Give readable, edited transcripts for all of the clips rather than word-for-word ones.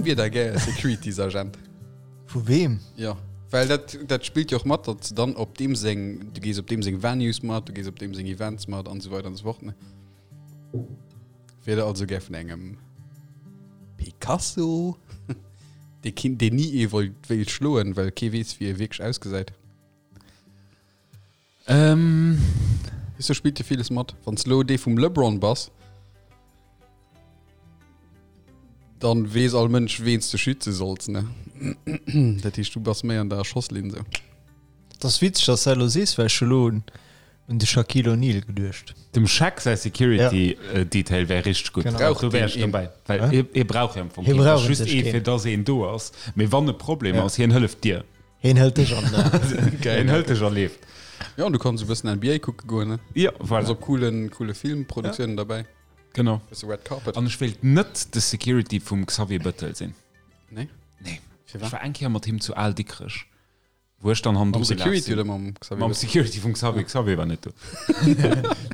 wier der gär Securities-Agent? Vu weem? Jo, well dat, dat spillt jo och mat, datt s de dann op deem seng, du gees op deem seng Venues mat, du gees op deem seng Events mat an esou weider an esou fort, ne? Wier der also gär vun engem Picasso, dee keen, deen ni ee wollt, wéilt schloen, well kee weess, wéi e wierklech ausgesäit? Ähm. Weess du, spillt jo villes mat. Wann s lo dee vum LeBron bass, dann weess all Mënsch, ween s de schütze solls, ne? Dat heescht, du bass méi an der Schosslinn sou. Et ass witzeg, dass du dat elo sees, well ech hu lo un un de Shaquille O'Neal geduecht. Dem Shaq säi Security Detail wär richteg gutt. Genau. Do wär ech dobäi. Well hie hie brauch jo am Fong Hie keen. brauch Ass just un sech ee keen. fir dass een do ass. Mee wann e Problem Ja. ass, hien hëlleft dir. Hien hëlt dech an den Aarm. Geil. Hien hëlt dech a leeft. Ja, an du kanns e bëssen NBA kucke goen, ne? Ja, voilà. Ass op coolen, coole Filmproduktiounen derbäi. Genau. Bësse Red Carpet. An ech wéilt net de Security vum Xavier Bëttel sinn. Nee? Nee. Firwat? Ech war eng Kéier mat him zu Al Dikrech. Wou ech dann hannendru Mam gelaf Security sinn. oder mam Xavier? Mam Security vum Xavier. Xavier war net do.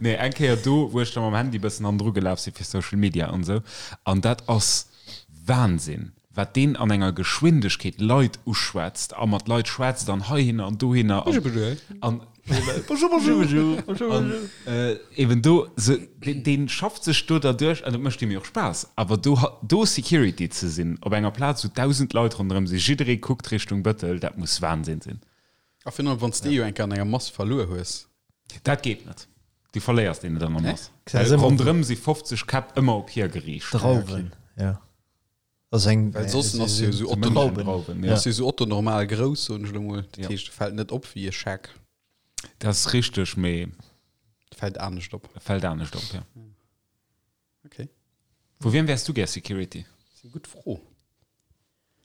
Nee, eng Kéier do, wou ech da mam Handy bëssen hannendru gelaf sinn fir Social Media an esou. An dat ass Wahnsinn, wat deen an enger Geschwindegkeet Leit uschwätzt a mat Leit schwätzt an heihinner an dohinner an, an Bonjour, bonjour. An eben do, se, deen, dee schafft sech do derduerch an et mécht him jo och Spaass. Awer do, do Security ze sinn op enger Plaz, wou 1.000 Leit ronderëm sinn, jidderee kuckt Richtung Bëttel, dat muss Wahnsinn sinn. A virun allem, wann s de jo eng Kéier an enger Mass verluer hues. Dat geet net. Du verléiers deen net an der Mass. Well Ronderëm si 50 Käpp ëmmer op hie geriicht. Drauwen, ja. Ass eng, Well soss ass jo esou Otto, Drauwen, ja. ass jo esou Otto normal grouss, soen ech elo mol. Dat Ja. heescht, e fält net op wéi e Scheck. Dat ass richteg, mee Fält anescht op. e fält anescht op, ja. Okay. Vu wiem wäers du gär Security? Dat ass eng gutt Fro.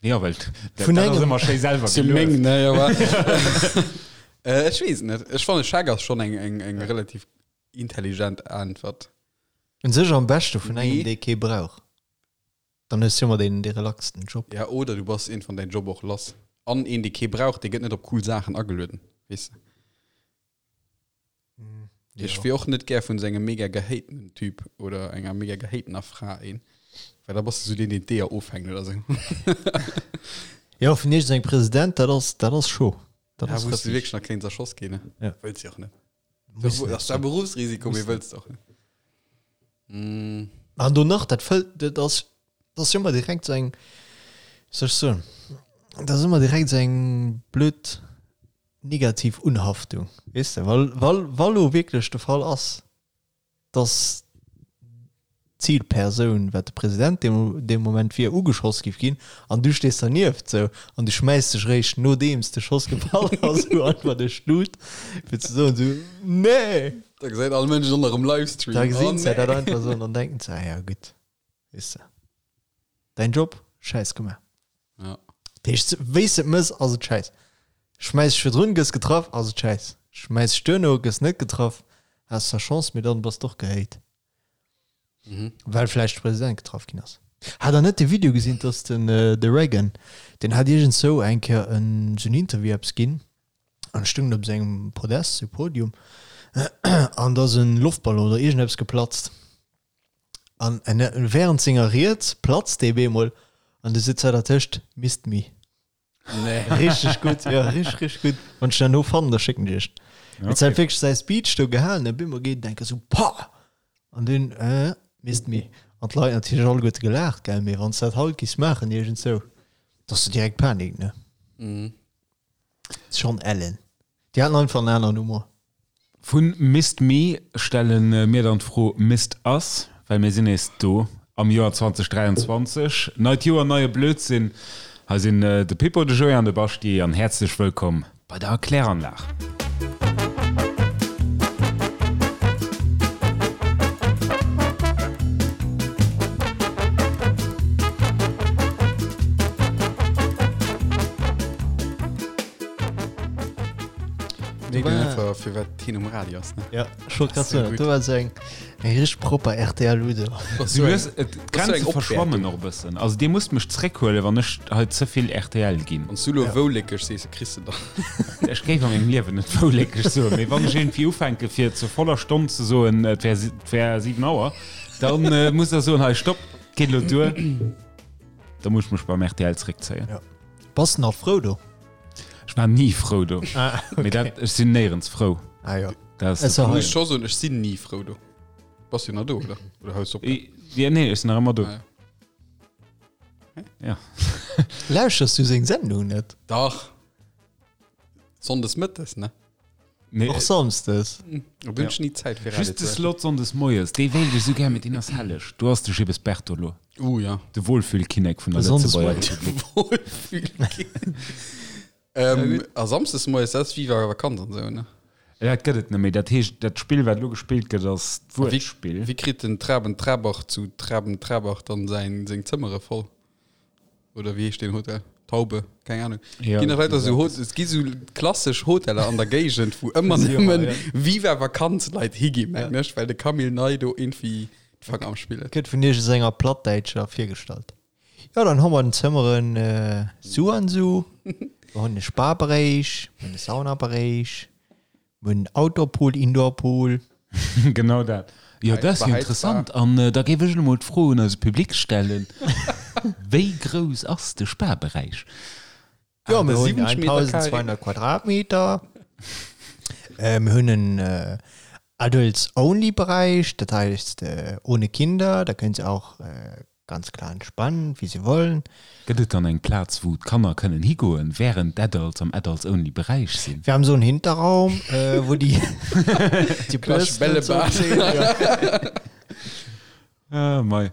Ja, well dat Vun dat ass engem. ëmmer schéi selwer Sinn meng, gelueft. ne, jo, wa. Äh, ech weess et net. Ech fannen, Scheck ass schonn eng, eng, eng relativ intelligent Äntwert. Un sech am beschte vun engem, Nee. dee kee brauch. Dann hues du ëmmer deen dee relaxten Job. Ja, oder du bass iergendwann däin Job och lass. An een, dee kee brauch, dee gëtt net op cool Saachen agelueden, weess de. Ech wier och net gär vun esou engem mega gehatenen Typ oder enger mega gehatener Fra een, well da bass de esou deen, deen d'Eeër ofhänkt oder esou. Jo, vun iergendengem President, dat ass, dat ass scho. Dat Ja, ass wou s du rëffeg. wierklech nach kéints erschoss ginn, ne? Ja. Wëlls jo och net. Muss net Ass zwar sinn. Berufsrisiko, mee Muss net. wëlls de och net. Mm. An do nach, dat fëllt, dat ass, dat ass ëmmer direkt sou eng, wéi soll ech soen, dat ass ëmmer direkt sou eng blöd negativ Unhaftung, weess de, well, well, wa lo wierklech de Fall ass, dass d'Zilpersoun, wat de President dee, dee Moment wier, ugeschoss giff ginn an du stees dernieft sou an du schmäiss dech réischt nodeems de Schoss gefall ass sou einfach duerch d'Lut, fir ze soen sou, Nee! Da gesäit all Mënsch et och nach um Livestream. Da gesinn Oh se dat nee! einfach sou an dann denken se, ah ja gutt, weess de, däin Job, Schäiss gemaach. Ja. Dat heescht, wéi s de et mëss, ass et schäiss. Schmäiss dech virdrun, gëss getraff, ass et schäiss. Schmäiss dech duerno, gëss net getraff, has zwar Chance, mee dann bass d'och gehate. Mhm. Well vläicht de President getraff ginn ass. Hat der net de Video gesinn, dass den de Reagan, deen hat iergendzou eng Kéier en sou en Interview eppes ginn an stoung op sengem Podest, sou Podium, an da ass en Loftballon oder iergendeppes geplatzt. An während senger Ried platzt dee bemol an du sitz hei dertëscht, Missed me. Nee. Richteg gutt, jo, richteg, richteg gutt. Wann ech dat no fannen, da schécken ech iech. Okay. Et huet wierklech säi Speech do gehalen, a bemol geet en enke sou, Pah! An dunn, äh, missed me. An d'Leit natierlech alleguerte gelaacht, gell, mee wann s dat haut giffs maachen iergendzou, da ass du direkt Panik, ne? Mhm. Schon ellen. Déi haten einfach en aneren Humor. Vu Missed Me stelle mir dann d'Fro Missed Us, well mir sinn nees do am Joer 2023. Neit Joer, neie Blödsinn. Hei sinn de Pippo, de Joé an de Baschti an häerzlech wëllkomm bei der Erkläranlag. Nee, den einfach fir wat hien um Radio ass ne? Ja, ech wollt grad So soen, gutt. do war sou eng eng richteg propper RTL-Ludo. Das Du so eng, hues, et, das so d'Grenze eng verschwammen Opwäertung. och e bëssen. Also dir musst mech zréckhuelen, wann ech hei ze vill RTL ginn. Wann s du lo wouléckeg sees, kriss de dann. Ech géif a mengem Liewen net wouléckeg soen, mee wann ech iergendwéi ufänke fir zur voller Stonn ze soen, et wär, et wär 7 Auer, dann äh, musst der soen, hei stopp, geet elo duer. Da muss ech mech beim rtl zréckzéien. Ja. Bass de nach frou do? Ech war ni frou do. Ah, Mee okay. dat, ech sinn néierens frou. Ah, ja. Dat ass Es de war Muss hei. ech scho soen, ech sinn ni frou do. Bass jo nach do, oder? Oder hues op? I- Ja, nee, ech sinn nach ëmmer do. Ah, ja. Ja. Lauschters du seng Sendung net? Dach. Sonndes mëttes, ne? Nee, Och samsdes. Da hunn ech ni Zäit fir Radio Just de ze lauschteren. Slot sonndes moies, dee wéilt ech esou gär, mee deen ass helleg. Do ass de Gibbes Bertolo, Uh, ja. de Wohlfühlkinnek vun der Sonndes Lëtzebuerger moies. Republik. Wohlfühlkinnek. ähm, a samsdes moies, dat ass Viva Vakanz an esou, ne? Ja, dat gëtt et net méi. Dat heescht, dat Spill, wat elo gespillt gëtt, ass d'Wuertspill. Wéi kritt den Traben Trabach zu Traben Trabach dann säin, seng Zëmmere voll? Oder wéi heescht deen Hotel? Taube, keng Ahnung. Ja, Ginn nach leider so dat Hot es gi so klassesch Hoteller an der Géigend, wou ëmmer nëmmen ja. Viva Vakanz-Leit higi mengen ech, well de Camille Ney do irgendwie d'Fanger am Spill huet. Gëtt vun iergendenger Plattdäitscher virgestallt. Jo, dann hu mer den Zëmmeren su an su. Mer hunn e Spa-Beréich, mer hunn e Sauna-Beréich, mer hunn en Outdoor-Pool, Indoor-Pool. Genau dat. Jo, dat ass jo interessant. An da géif ech elo mol d'Fro un eise Public stellen, Wéi grouss ass de Spa-Beräich? Jo, mir hunn 70 Meter Carré. 1200 Quadratmeter. Mir hunn en Adults-Only-Bereich, dat heisst ohne Kinder, da kënnt se auch ganz klar entspannen, wie se wollen. Gëtt et dann eng Plaz, wou d'Kanner kënnen higoen, wärend d'Adults am Adults-Only-Beräich sinn? Wir haben so einen Hinterraum, wo die, die Klassisch Bürsten und so Bällebad. stehen, ja. Ah, mei.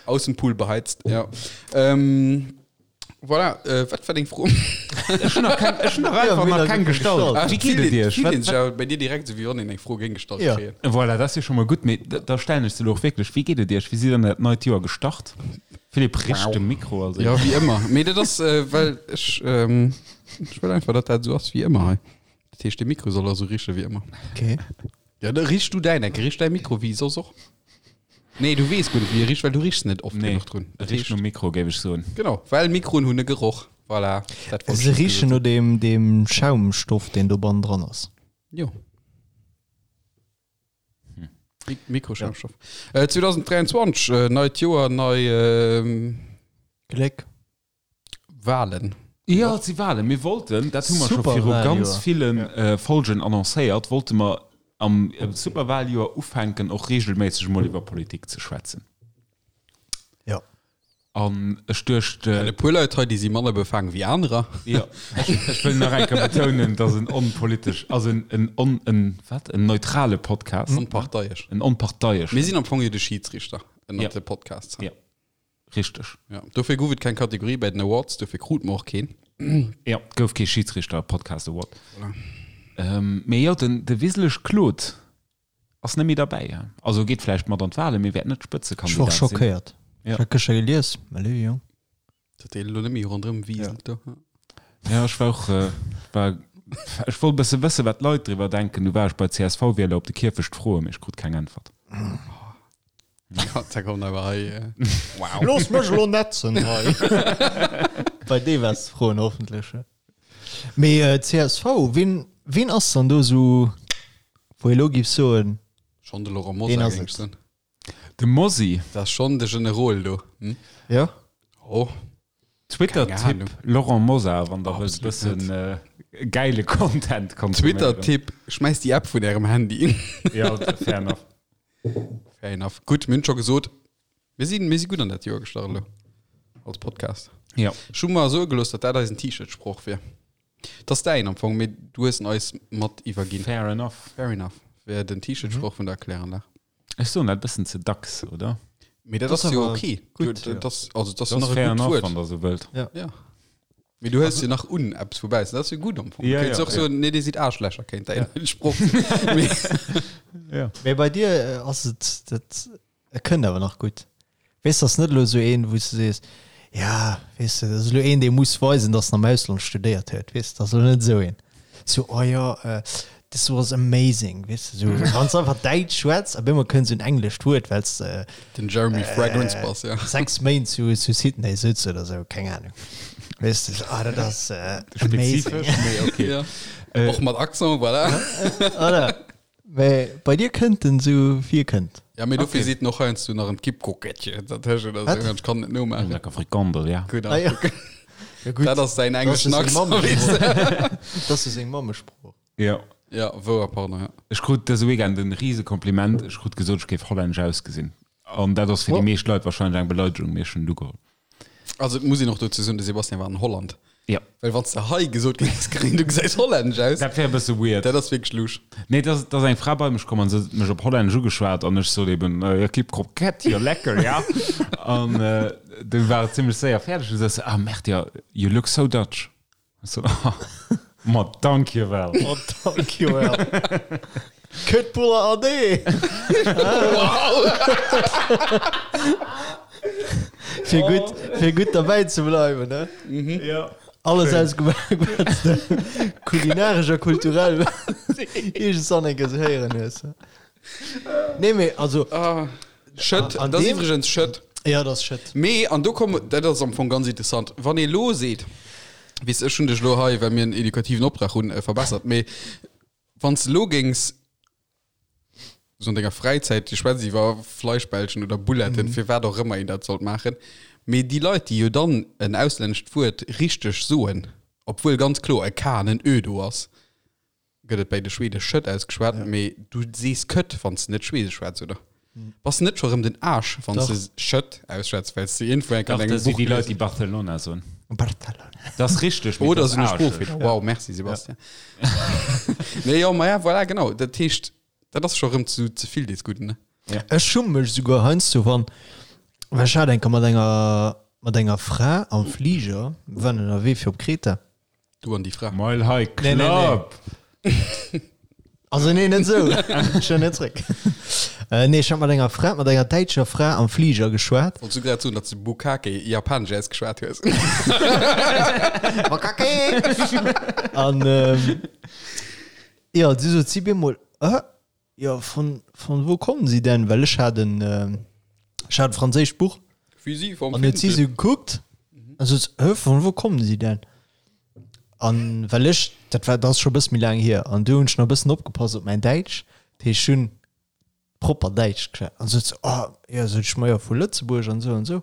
Aussenpool beheizt, ja. Ähm, voilà, äh, wat war deng Fro? Ech hunn nach keng, ech hunn nach Ja, einfach mir nach nach keng keng gestallt. gestallt. Wéi geet et Iech? Fillt Wat, een sech awer bei dir direkt esou, wéi wann een eng Fro géing gestallt Ja. kréien. Voilà, dat ass jo scho mol gutt, mee da, da stellen ech se elo och wierklech. Wéi geet et Iech? Wéi sidd der an dat neit Joer gestart? Philippe richt de Mikro, also. Ja, wéi ëmmer. Mee dat ass, äh, well ech, ähm, ech wëll einfach, datt dat esou ass wéi ëmmer hei. Dat heescht, de Mikro soll also riche wéi ëmmer. Okay. Ja, da richt du däin, enke richt däi Mikro wéi soss och. Nee, du weess guer net, wéi e richt, well du richs net oft Nee, genuch drun. e richt nom Mikro, géif ech soen. Genau, well Mikroen hunn e Geroch. Voilà, dat wollt ech Se just richen gesot no deem, deem Schaumstoff, deen do bannen dran ass. hunn. Jo. Mik Mikroschaumstoff. Äh, 2023, äh, neit Joer, nei ähm, Gléck. Wahlen. Jo, et si Wahlen. Mir wollten, dat hu mer scho viru ganz ville Folgen annoncéiert, wollte mer am Superwahljoer ufänken, och regelméisseg emol iwwer Politik ze schwätzen. Jo. An ech duecht. E puer Leit hei, déi si manner befaangen wéi anerer. Jo, ech wëll nach eng Kéier betounen, dass en onpolitesch, also en on, en wat, en neutrale Podcast. Onparteiesch. En onparteieschen. Mir sinn am Fong jo de Schidsrichter ënnert de Podcasts. Jo. Richteg. Ja, dofir gouf et keng Kategorie bei den Awards, dofir krut mer och keen. Ja, et gouf kee Schidsrichter Podcast Award. Voilà. Ähm, mee jo, den, de Wiseleg Claude ass net méi derbäi. Ja. Also geet vläicht mat an d'Wahlen, mee wäert net Ech war Spëtzekandidat sinn. schockéiert. Ja. Ech hat gëschter gelies, mä léiwe Jong. Dat dee lo net méi ronderëm wiselt do. Ja, ech war och, äh, war, ech wollt e bësse wëssen, wat d'Leit driwwer denken. Du war ech bei CSV-Wieler op de Kierfecht froen, mee ech krut keng Äntwert. Ja, da kommt awer hei. Äh, wow. Looss mech elo netzen hei. Bei deem waars de froen, hoffentlech. Mee äh, csv, wien, wien ass dann do sou, wou ee lo giff soen, Schon de Laurent Deen Mosar, ass géing et. ech soen. De Mossi. Dat ass schon de Generol do. Hm? ja? Oh. Twitter-Tipp Laurent Mosar, wann der wëllt Absolut bëssen äh, geile Content konsuméieren. Twitter-Tipp, schmäiss déi App vun ärem Handy. Ja, fair enough. Fair enough. Gutt, mir hunn scho gesot, mir sinn, mir si gutt an dat Joer gestart elo als Podcast. Ja. Ech hu mer soe gelooss, datt dat eisen T-Shirt-Sproch wier. Dat ass däin am Fong, mee du hues en eis mat iwwerginn. Fair enough. Fair enough. Wär den T-Shirt-Sproch vun der Kläranlag. Ech soen dat bëssen ze dacks, oder? Mee dat Das ass jo awer okay. gutt, Du, ja. dat ass, also, dat ass Dat ass nach e fair gutt enough, Wuert. wann der sou wëllt. Ja. Mee du hëls jo nach un eppes woubäi, dat ass jo gutt am Fong. Ja, Du kéints ja, och soen, nee, dir sidd Aarschlächer, kéint däin Sproch sinn. Mee Ja. Mee bei dir äh, ass et, dat e kënnt awer nach gutt. Weess, ass net elo sou een, wou s du sees, ja, weess de, dat ass elo een, dee muss weisen, datt en am Ausland studéiert huet, weess, dat ass elo net esou een. Sou, oh jo, äh, this was amazing, weess de, sou, wann s de einfach Däitsch schwätz, op eemol kënnt sou en englescht Wuert, well s de den Jeremy Fragrance bass, ja. 6 Méint zu, zu Sydney sëtz oder sou, keng Ahnung. Weess de, sou, ah, dat ass äh, amazing. Spezifesch, mee okay. Ja. Och mat Accent, voilà. Oder? Mä bei dir kënnt en sou wéi e kënnt. Ja, mee dofir seet en och heiansdo nach en Kippkrokettche dertëschent oder sou. Ech kann et net nomaachen. Lecker Frikandel, ja. Gutt, Ah ja. Ja gutt. Dat ass säin engleschen Accent, weess de. Dat ass jo seng Mammesprooch. Jo. Ja, wouer, pardon, ja. Ech krut dëse Weekend en rise Kompliment. Ech krut gesot, ech géif hollännesch ausgesinn. An dat ass fir déi meescht Leit wahrscheinlech eng Beleidegung, mee ech hunn et ugeholl. Also et muss een och dozou soen, de Sebastian war an Holland. Ja. Well wann s de hei gesot géings kréien, du gesäis hollännesch aus, Dat wär e bësse weird. dat ass wierklech lusch. Nee, et ass, et ass eng Fra bei mech komm an se huet mech op Hollännesch ugeschwat an ech sot eben, äh, ja, kip Kroket, jo lecker, ja. An äh, du war et zimmlech séier fäerdeg. Du sot se, ah, merde, ja, you look so Dutch. So, ma dankjewel. Ma dankjewel. Kutbuller ade. Wow. Fir gutt, fir gutt derbäi ze bleiwen, ne? Mhm. Ja. Alles ausgemaach, wat s de kulinaresch a kulturell iergendwann eng Kéier sou héieren hues. Nee, mee also. Ah, Schëtt, An dat ass deem- iwwregens Schëtt. Ja, dat ass Schëtt. Mee, an do komme, dat ass am Fong ganz interessant, wann ee lo seet, weess, ech hunn dech lo hei, well mir en edukativen Optrag hunn, verbessert, mee wann s de lo géings sou an denger Fräizäit, du schwätz iwwer Fleischbällchen oder Bouletten, firwat och ëmmer een dat sollt maachen, mee déi Leit, déi jo dann en auslännescht Wuert richteg soen, obwuel ganz kloer e K an en Ö do ass, gëtt et bäi de Schwede Schëtt ausgeschwat, mee du sees Këtt, wann s de net Schweedesch schwätz, oder? Bass de net scho rëm den Aarsch, wann s de Schëtt ausschwätz, well s de iergendwou eng Kéier an Dach, engem dat si Buch déi Leit, gelies déi Barcelona soen. Barcelona. Dat ass richteg, mee Oder dat esou ass e aarscheg. Sproochfeeler. Wow, merci Sebastian. Nee, jo, ma ja, voilà, genau. Dat heescht, dat ass scho rëm zu ze vill des Gudden, ne? Ech schumme mech esouguer heiansdo, wann, well ech hat eng Kéier mat enger, mat enger Fra am Fliger, mir waren ënnerwee fir op Kreta, Du an déi Fra. Mile High Nee, nee, nee. Club! Also nee, net esou. Ech huelen net zréck. Äh, nee, ech hat mat enger Fra, mat enger däitscher Fra am Fliger geschwat. Wollts du grad soen, datt s du Bukkake japanesch ausgeschwat hues? Bukkake! An ähm, ja, du sot si bemol, äh, Jo, von, von wo kommen sie denn? Well ech hat en, ech hat e franséischt Buch. Wie si vom An huet si sou gekuckt an sot, Hä, von wo kommen sie denn? An well ech, dat war, dat ass scho e bësse méi laang hier, an du hunn ech nach e bëssen opgepasst op mäin Däitsch, dat heescht, ech hunn propper Däitsch geschwat. An sot se, Oh, jo, sot ech, ma jo, vu Lëtzebuerg an esou an esou.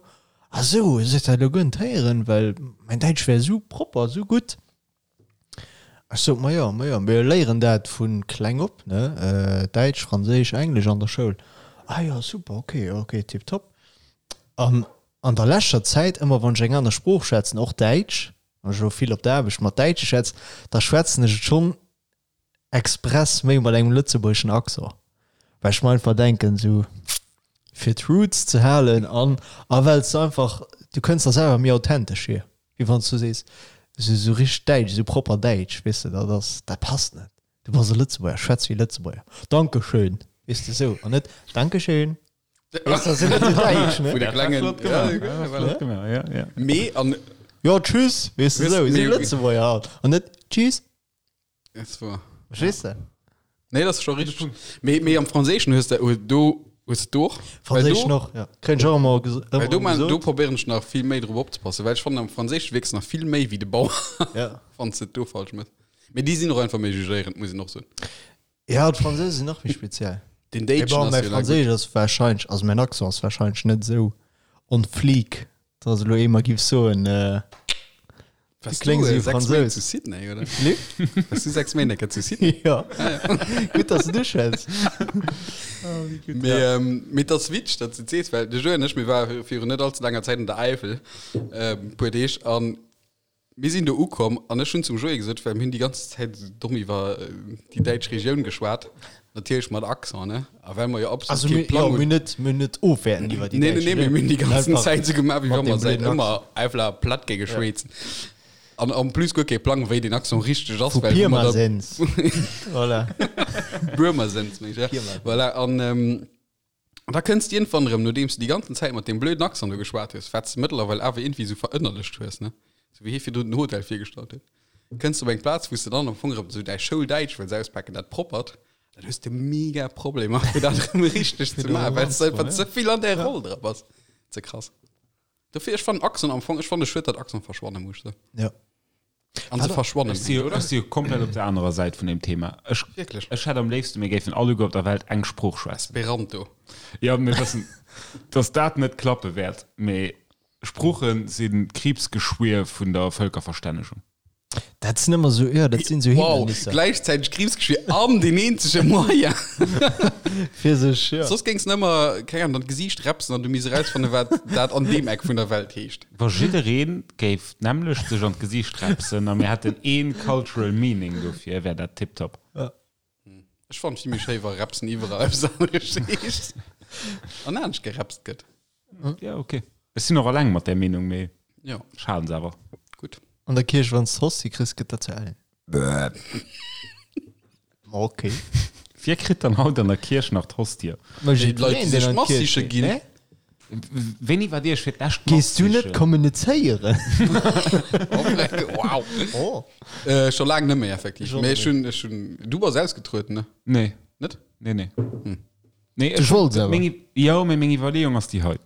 Ah sou, sot se, dat elo guer net héieren, well mäin Däitsch wär esou propper, esou gutt. Ech sot, Ma jo, ma jo, mir léieren dat vu kleng op, ne, Däitsch, Franséisch, Englesch an der Schoul. Ah jo, super, ok, ok, tiptop. An an der leschter Zäit, ëmmer wann ech eng aner Sprooch schwätzen, och Däitsch, wann ech elo vill op der Aarbecht mat Däitsche schwätzen, da schwätzen ech et schonn express méi mat engem lëtzebuergeschen Accent, well ech mer einfach denken, esou fir d'Roots ze halen an a well s de einfach, du kënns der selwer méi authentesch vir. Wéi wann s du sees, esou esou richteg däitsch, esou propper däitsch, weess de, dat ass, dat passt net. Du bass e Lëtzebuerger, schwätz wéi e Lëtzebuerger. Dankeschön, weess de, esou, an net Dankeschön. Weess de, dat ass jo net esou däitsch, ne? Vu de klengen, Flott gemaach, ja, flott gemaach, ja, ja. Mee an. Jo, tschüss, weess de, esou, esou Lëtzebuerger halt, an net tschüss. Es war. Verstees de? Nee, das ist schon richtig. Mee, mee am Franséischen hues de, do hues de och. Franséisch noch, ja. Kréien ech och ëmmer ges- Well ëmmer do, man, do gesot. probéieren ech nach vill méi drop opzepassen, well ech fannen am Franséischen wierks nach vill méi wéi de Bauer, Ja. wann s de et do falsch mëss. Mee déi sinn och einfach méi jugéierend, muss een och soen. Ja, d'Franséisch sinn nach méi speziell. Den Mee Déitschen bon, ass mäi jo nach gutt. Franséisch ass wahrscheinlech, also mäin Accent ass wahrscheinlech net esou on fleek, dass elo ee mer giff soen, äh, Warst kléngs du, wéi äh, sechs Méint Fransous. zu Sydney, oder? Nee? Warst du sechs Méint enker zu Sydney? Ja. Gutt, dass du du schwätz. Mee, ähm, mee dat ass witzeg, datt s du et sees, well de Joe an ech, mir ware virun net allze laanger Zäit an der Äifel, ähm, puer Deeg, an mir sinn do ukomm an ech hunn zum Joé gesot, well mir hunn déi ganz Zäit esou domm iwwer déi däitsch Regioun geschwat, natierlech mat Accent, ne? A well mer jo absolut Also kee mir, Plang jo, hunn. mir net, mir net ofwäerten iwwer déi Nee, nee, däitsch nee, mir Regioun. hunn déi ganzen Einfach Zäit esou gemaach, wéi mat wa mer deem säit blöden ëmmer Accent. Äifler platt géinge schwätzen. An en plus guer kee Plang, wéi den Accent richteg ass, Vu well wou mer da Pirmasens. Voilà. Buermersens, meng ech, ja. Pirmasens. Voilà, an ähm, an da kënns de iergendwann erëm, nodeems du déi ganzen Zäit mat deem blöden Accent do geschwat hues, wat s de mëttlerweil awer iergendwéi esou verënnerlecht hues, ne, esou wéi hie virdrun den Hotel virgestallt huet, kënns de op eng Plaz, wou s de dann am Fong erëm esou däi Schouldäitsch wëlls auspaken, dat proppert, Dann hues de mega Problemer fir dat erëm richteg ze maachen, well s de einfach ze vill an där Roll dra bass. Ze krass. Dofir, ech fannen Accent am Fong, ech fanne schued, datt Accent verschwanne muss. Ja. An se verschwannen Ech si jo, oder? ech si jo komplett op der anerer Säit vun deem Thema. Ech, Wierklech? ech hätt am léifsten, mir géifen alleguer op der Welt eng Sprooch schwätzen. Esperanto. Jo, mir wëssen, dass dat net klappe wäert, mee Sprooche sinn d'Kriibsgeschwier vun der Vëlkerverstännegung. Dat sinn ëmmer sou, jo, dat sinn sou Wow, Hindernisser. gläichzäiteg Kriibsgeschwier an deen eenzege Moyen. Fir sech, jo. Soss géings de ëmmer, keng Ahnung, an d'Gesiicht repsen an du misst erausfannen, wat dat an deem Eck vun der Welt heescht. Wa jidderee géif d'nämmlecht sech an d'Gesiicht repsen a mir hätten ee cultural meaning dofir, wär dat tiptop. Ech fannen et vill méi schéi, wa repsen iwwerall eppes aneres heescht an anescht gerepst gëtt. Ja, okay. Ech sinn och alleng mat där Meenung, mee Ja, ech halen se awer. gutt. An der Kierch, wann s d'Hostie kriss, gëtt dat zu Ellen. Okay. Wie kritt dann haut an der Kierch nach d'Hostie? Ma Déi Leit, jiddwereen, déi deen sech an d'Mass d'Kierch siche geet, ginn. ne? Wéini waart Dir iech fir d'lescht Mass Gees du net sichen? kommunizéieren? Wow. Oh. Äh, scho laang net méi, effektiv. Ech och Mee net ech hunn, ech hunn, du bass ausgetrueden, ne? Nee. Net? Nee, nee. Nee, Du wollts awer. Meng, jo, mee meng Iwwerleeung ass déi hei.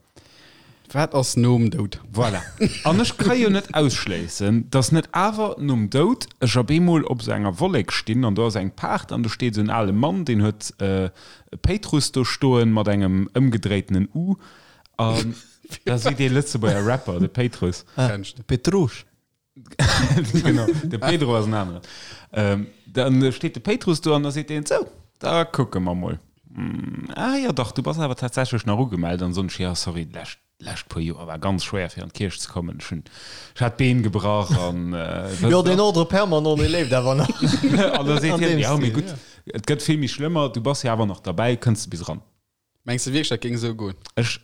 Wat ass nom Doud? Voilà. An ech ka jo net ausschléissen, dass net awer nom Doud ech op eemol op esou enger Wollek stinn an do ass eng Paart an do steet esou en ale Mann, deen huet e Péitrus do stoen mat engem ëmgedréitenen U an da seet dee Lëtzebuerger Rapper, de Péitrus. Kennst de. Petrouche. Genau, de Pedro ass en aneren. Ähm, dann steet de Péitrus do an da seet deen, Sou, da kucke mer mol. Hm, ah jo dach, du bass awer tatsächlech nach ugemellt. An soen ech, Jo, sorry, d'lescht, d'lescht puer Joer war ganz schwéier fir an d'Kierch ze kommen. Ech hunn, ech hat d'Been gebrach an äh, Jo, deen Ordre permanent, dee leeft awer nach. An da seet An hien, deem Jo, mee Stil, gutt, ja. et gëtt vill méi schlëmmer, du bass jo awer nach derbäi, kënns de bis eran. Mengs de wierklech, dat géing esou goen? Ech,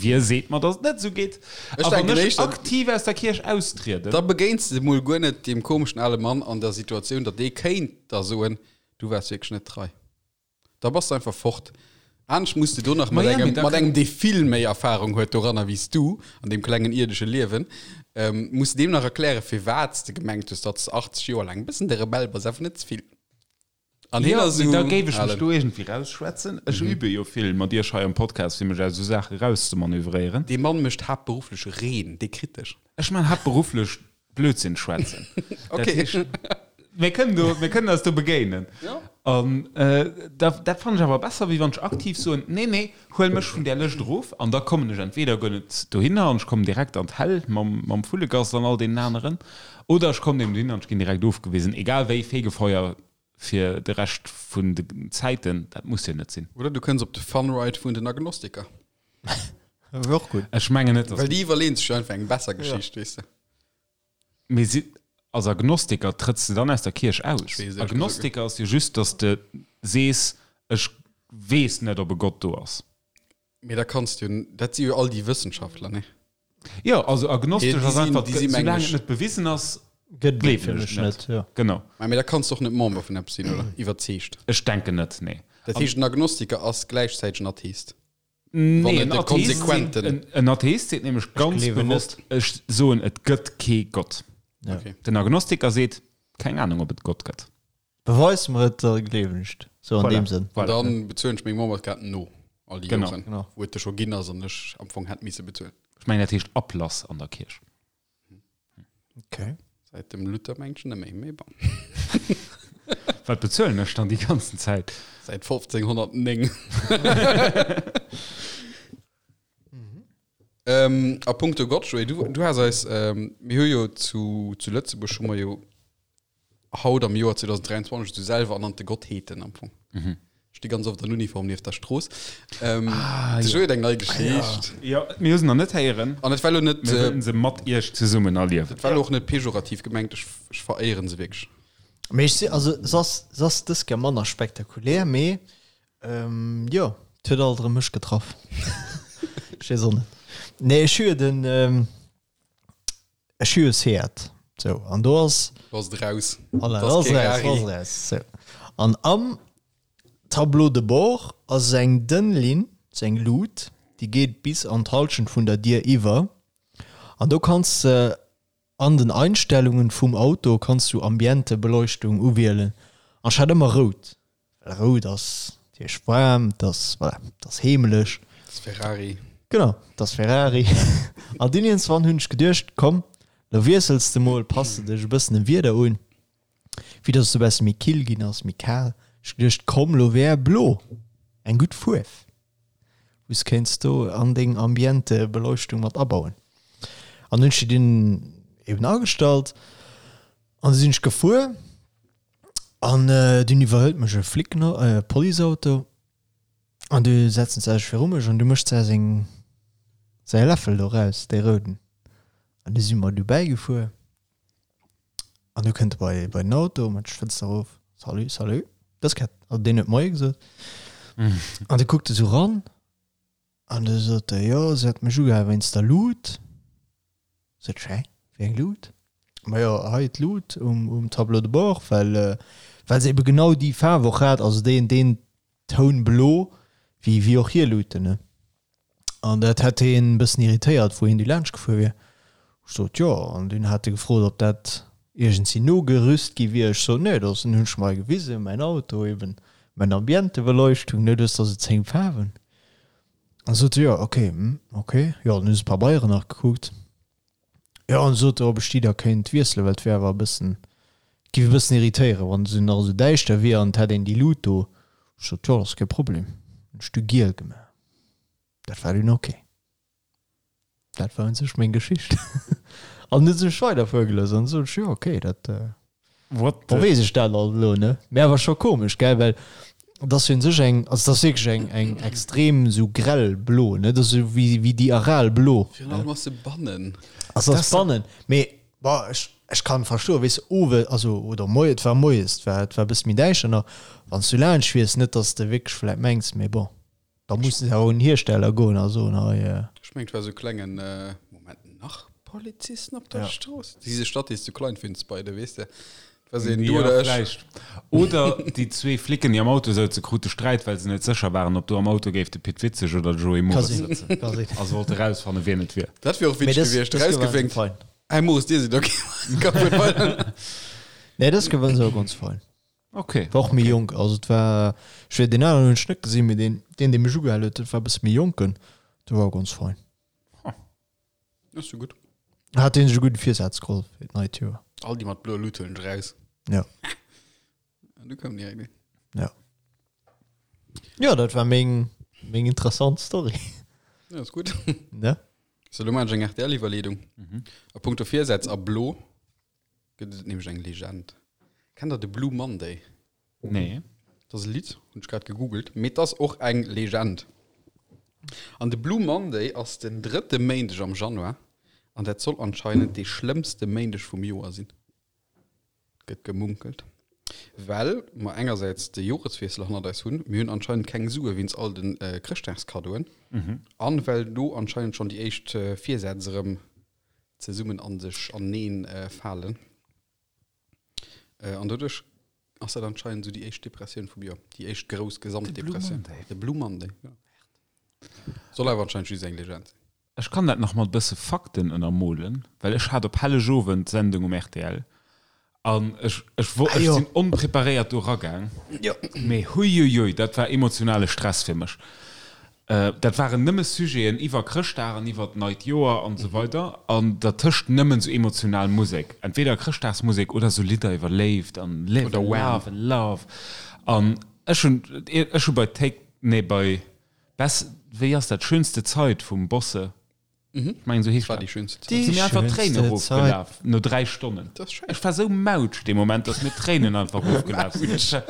wie seet mer, datt et net esou geet? Ech A wann denken ech éischter- aktiv aus der Kierch austrieden? Da begéins de mol guer net deem komeschen ale Mann an der Situatioun, datt dee kéint der soen, du waars wierklech net trei. Da bass de einfach fort. Anescht muss de do nach mat Ma ja, mee engem, da mat kann- engem, dee vill méi Erfahrung huet doranner wéi s du an deem klengen ierdesche Liewen, ähm, muss de deem nach erklären, firwat s de gemengt hues, datt s de 80 Joer laang e bëssen de Rebell bass, awer net ze vill. An hien Jo, ass mee da esou géif ech mech alen. do iergendwéi rausschwätzen. Ech übe jo vill mat iech hei am Podcast, fir mech aus esou Saache rauszemanövréieren. Dee Mann mécht haaptberufflech Reen, dee kritt dech. Ech man haaptberufflech Blödsinn schwätzen. Dat Okay. heescht, mir kënnen do, mir kënnen eis do begéinen. Ja. An da, dat fannen ech awer besser, wéi wann ech aktiv soen, nee, nee, huel mech vun där Lëscht erof an da kommen ech entweder guer net dohinner an ech kommen direkt an d'Häll mam, mam Vullegass an all deenen aneren, oder ech kommen eben dohinner an ech ginn direkt ofgewisen. Egal wéi, Fegefeuer fir de Rescht vun de Zäiten, dat muss jo net sinn. Oder du kënns op de Fun Ride vun den Agnostiker. Wär och gutt. Ech mengen net, dass. Well déi iwwerleeën sech jo einfach eng besser Geschicht, weess de. Mee si, als Agnostiker trëtts de dann aus der Kierch aus? weess ehrlech gesagt Agnostiker ass jo just, dass de sees, ech weess net, ob e Gott do ass. Mee da kanns du jo, dat si jo all déi Wëssenschaftler, ne? Jo, also agnostesch Déi ass sinn- einfach, déi si soulaang mengen et net bewisen ass, Gëtt gleewen fir ech mech net. net, jo. Genau. Mä mee da kanns du och net Member vun eppes sinn, oder? Iwwerzeegt. Ech denken net, nee. Dat heescht, en Agnostiker ass gläichzäiteg en Atheist. Nee, Wann en et de Atheist seet, konsequenten. en, en Atheist seet nämlech ganz gleewen bewosst, ech soen, et gëtt kee Gott. Ja. Okay. Den Agnostiker seet, keng Ahnung, ob et Gott gëtt. Beweis mer et, da gleewen ech et. Sou an Voilà. deem Sënn. An Voilà. dann bezuelen ech meng Memberskaart no all déi Genau. Joren, Genau. wou et der scho ginn ass an ech am Fong hätt misse bezuelen. Ech mengen, dat heescht Ablass an der Kierch. Okay. Säit dem Luther mengt ech net méi, mee bon. Wat bezuelen ech dann déi ganzen Zäit? Säit 1509. Ähm, a puncto Gott, Joé, du, du has eis, ähm, mir hu jo zu, zu Lëtzebuerg hu mer jo haut am Joer 2023 esou selwer ernannte Gottheeten am Fong. Mhm. Sti ganz oft an Uniform nieft der Strooss. Ähm, ah, ja. eng nei Geschicht. Ja, mir hu se nach net héieren. An et war lo net, Mir äh, wëllen se mat iech zesummen erliewen. et war lo och net pejorativ gemengt, ech, ech veréieren se wierklech. Mee ech si, also se ass, se ass dës Kéier manner spektakulär, mee ähm, jo, et huet alt erëm mech getraff. Ech weess och net. Nee, ech hu jo den, ähm, Ech hu jo Seat, sou, an do ass. Do ass et raus. Voilà, Dat do ass ass kee et raus, do Rari. ass et raus, sou. An am Tableau de bord ass eng dënn Linn, sou eng Lut, déi geet bis an d'Halschent vun der Dier iwwer. An do kanns de an den Einstellungen vum Auto kanns du Ambientebeleuchtung uwielen. An ech hat ëmmer rout. Well rout ass natierlech waarm, et ass, voilà, et ass heemeleg. Et ass Ferrari. Genau, et ass Ferrari. An dunn iergendswann hunn ech geduecht, komm, Lo wiessels de mol, pass de dech e bëssen dem Wieder un, vue dass et e besse méi kill ginn ass, méi kal. Ech geduecht, komm lo wär blo eng gutt Fuerf, wou s kéints do an deng Ambiente Beleuchtung mat abauen. An hunn ech déi dunn eben agestallt an du sinn ech gefuer an dunn iwwerhëlt mech e Flic, e Policeauto. An du setzen se sech viru mech an du mécht se seng säi Läffel do raus, dee rouden. An du si mer du bäigefuer an du kënnt e bei bei den Auto, mat d'Fënster erof, Salut, salut. Dës Kéier, also deen huet Moie gesot. An du kuckt e sou ran an du sot e, jo, se hätt mech ugehal wéinst der Lut. Sot ech, hä, wéi eng Lut? Majo, hei d'Lut um um Tableau de bord, well well se ebe genau déi Faarf och hat, also deen deen Toun blo, wéi wéi och hir Luten, ne? An dat hätt hien e bëssen irritéiert, wou hien du laanscht gefuer wier. Ech sot, jo, an dunn hat e gefrot, ob dat iergendsi nogerüst gi wier. Ech sot, nee, dat ass, hunn ech mer hei gewisen, mäin Auto eben, mäin Ambientebeleuchtung, ne, du hues der sou 10 Faarwen. An sot e, jo, ok, hm, ok. Jo, dann hu se d'Pabeieren nach gekuckt. Jo, an sot e, ob ech déi da kéint wiesselen, well et wär awer e bëssen, et géif e bëssen irritéieren, wann se nach esou däischter wier an et hätt een déi Lut do. Ech sot, jo, dat ass kee Problem. Hunn ech du giel gemaach. Dat war dunn ok. Dat war un sech meng Geschicht. An huet sech weider fuergelooss an sot ech, jo, ok, dat. What the. Weess ech dat alt elo, ne? Mee awer scho komesch, gell? Well et ass jo un sech eng, also et ass wierklech eng, eng extrem esou grell blo, ne? Et ass esou wéi, wéi déi Aral blo. Virun allem ass se bannen. Also ass bannen, mee bon, ech, ech kann verstoen, weess de, owe, also oder moie, et war moies, et war, et war e bësse méi däischter nach, wann s du laanscht fiers, net datt s de wierklech vläit mengs, mee bon. Da mussen se awer un den Hiersteller goen a soen, hei. Ech mengen, et war sou klengen, Moment, nach Polizisten op der Strooss? Diese Stadt ist zu klein für uns beide, weess de? Et war sou een, du oder ech. Vläicht. Oder déi zwee Flicken, déi am Auto souze, krute Sträit, well se net sécher waren, ob do am Auto géif de Pit Witzeg oder de Joé Ka Moris sinn, sëtzen. ka sinn. A se wollte rausfannen, wien et wier. Dat wier och Mee witzeg dës, gewiescht, dës Kéier waren se rausgewénkt, fein. Hey Moris, dir sidd ok, ka fuert weider. Nee, dës Kéier waren se awer ganz fein. Okay. War och méi jonk, also et war, ech weess, deen aneren hunn ech net gesinn, mee deen, deen, dee mech ugehal huet, dat war e bësse méi jonken, dee war och ganz fein. Ass jo gutt. Hat dee sech e gudde Virsaz geholl fir d'neit Joer. All déi mat bloer Lut huelen ech raus. Ja. An du koum direkt een. Ja. Jo, dat war meng, meng interessant Story. Ja, ass gutt. Ne? So, lo maachen ech eng RTL-Iwwerleedung. A punkto Virsätz a blo. Gëtt et nämlech eng Legend. Kennt der de Blue Monday? Nee. Dat ass e Lidd, hunn ech grad gegoogelt, mee et ass och eng Legend. An de Blue Monday ass den drëtte Méindeg am Januar an dat soll anscheinend dee schlëmmste Méindeg vum Joer sinn, gëtt gemunkelt. Well mer engersäits de Joreswiessel hannert eis hunn, mir hunn anscheinend keng Sue wéinst all de Chrëschtdagskaddoen an well do anscheinend schonn déi éischt Virsätz erëm zesummen an sech aneen falen. An doduerch ass dat anscheinend esou déi éischt Depressioun vum Joer, déi éischt grouss Gesamtdepressioun. De Blue Monday, ja. Soll awer anscheinend just eng Legend sinn. Ech kann dat nach mat bësse Fakten ënnermolen, well ech hat op Hellegowend d'Sendung um rtl An ech, ech, wo, ech sinn onpreparéiert do ragaang. Mee huiuiui, dat war emotionale Stress fir mech. Dat waren nëmme Sujeten iwwer Chrëschtdag an iwwer d'neit Joer an esou weider an dertëscht nëmmen esou emotional Musek. Entweder Chrëschtdagsmusek oder esou Lidder iwwer Léift an Live and Love and Love. An ech hunn, ech hu bei Take, nee bei Bess, wéi ass dat, Schönste Zeit vum Bosse Mhm. Ich mein, so heescht War dat. déi schönste Zäit. Déi Sinn mir einfach Tréinen schönste erofgelaf no 3 Stonnen. Dat ass schéin. Ech war sou mautsch dee Moment, dass mir d'Tréinen einfach erofgelaf sinn. Ech war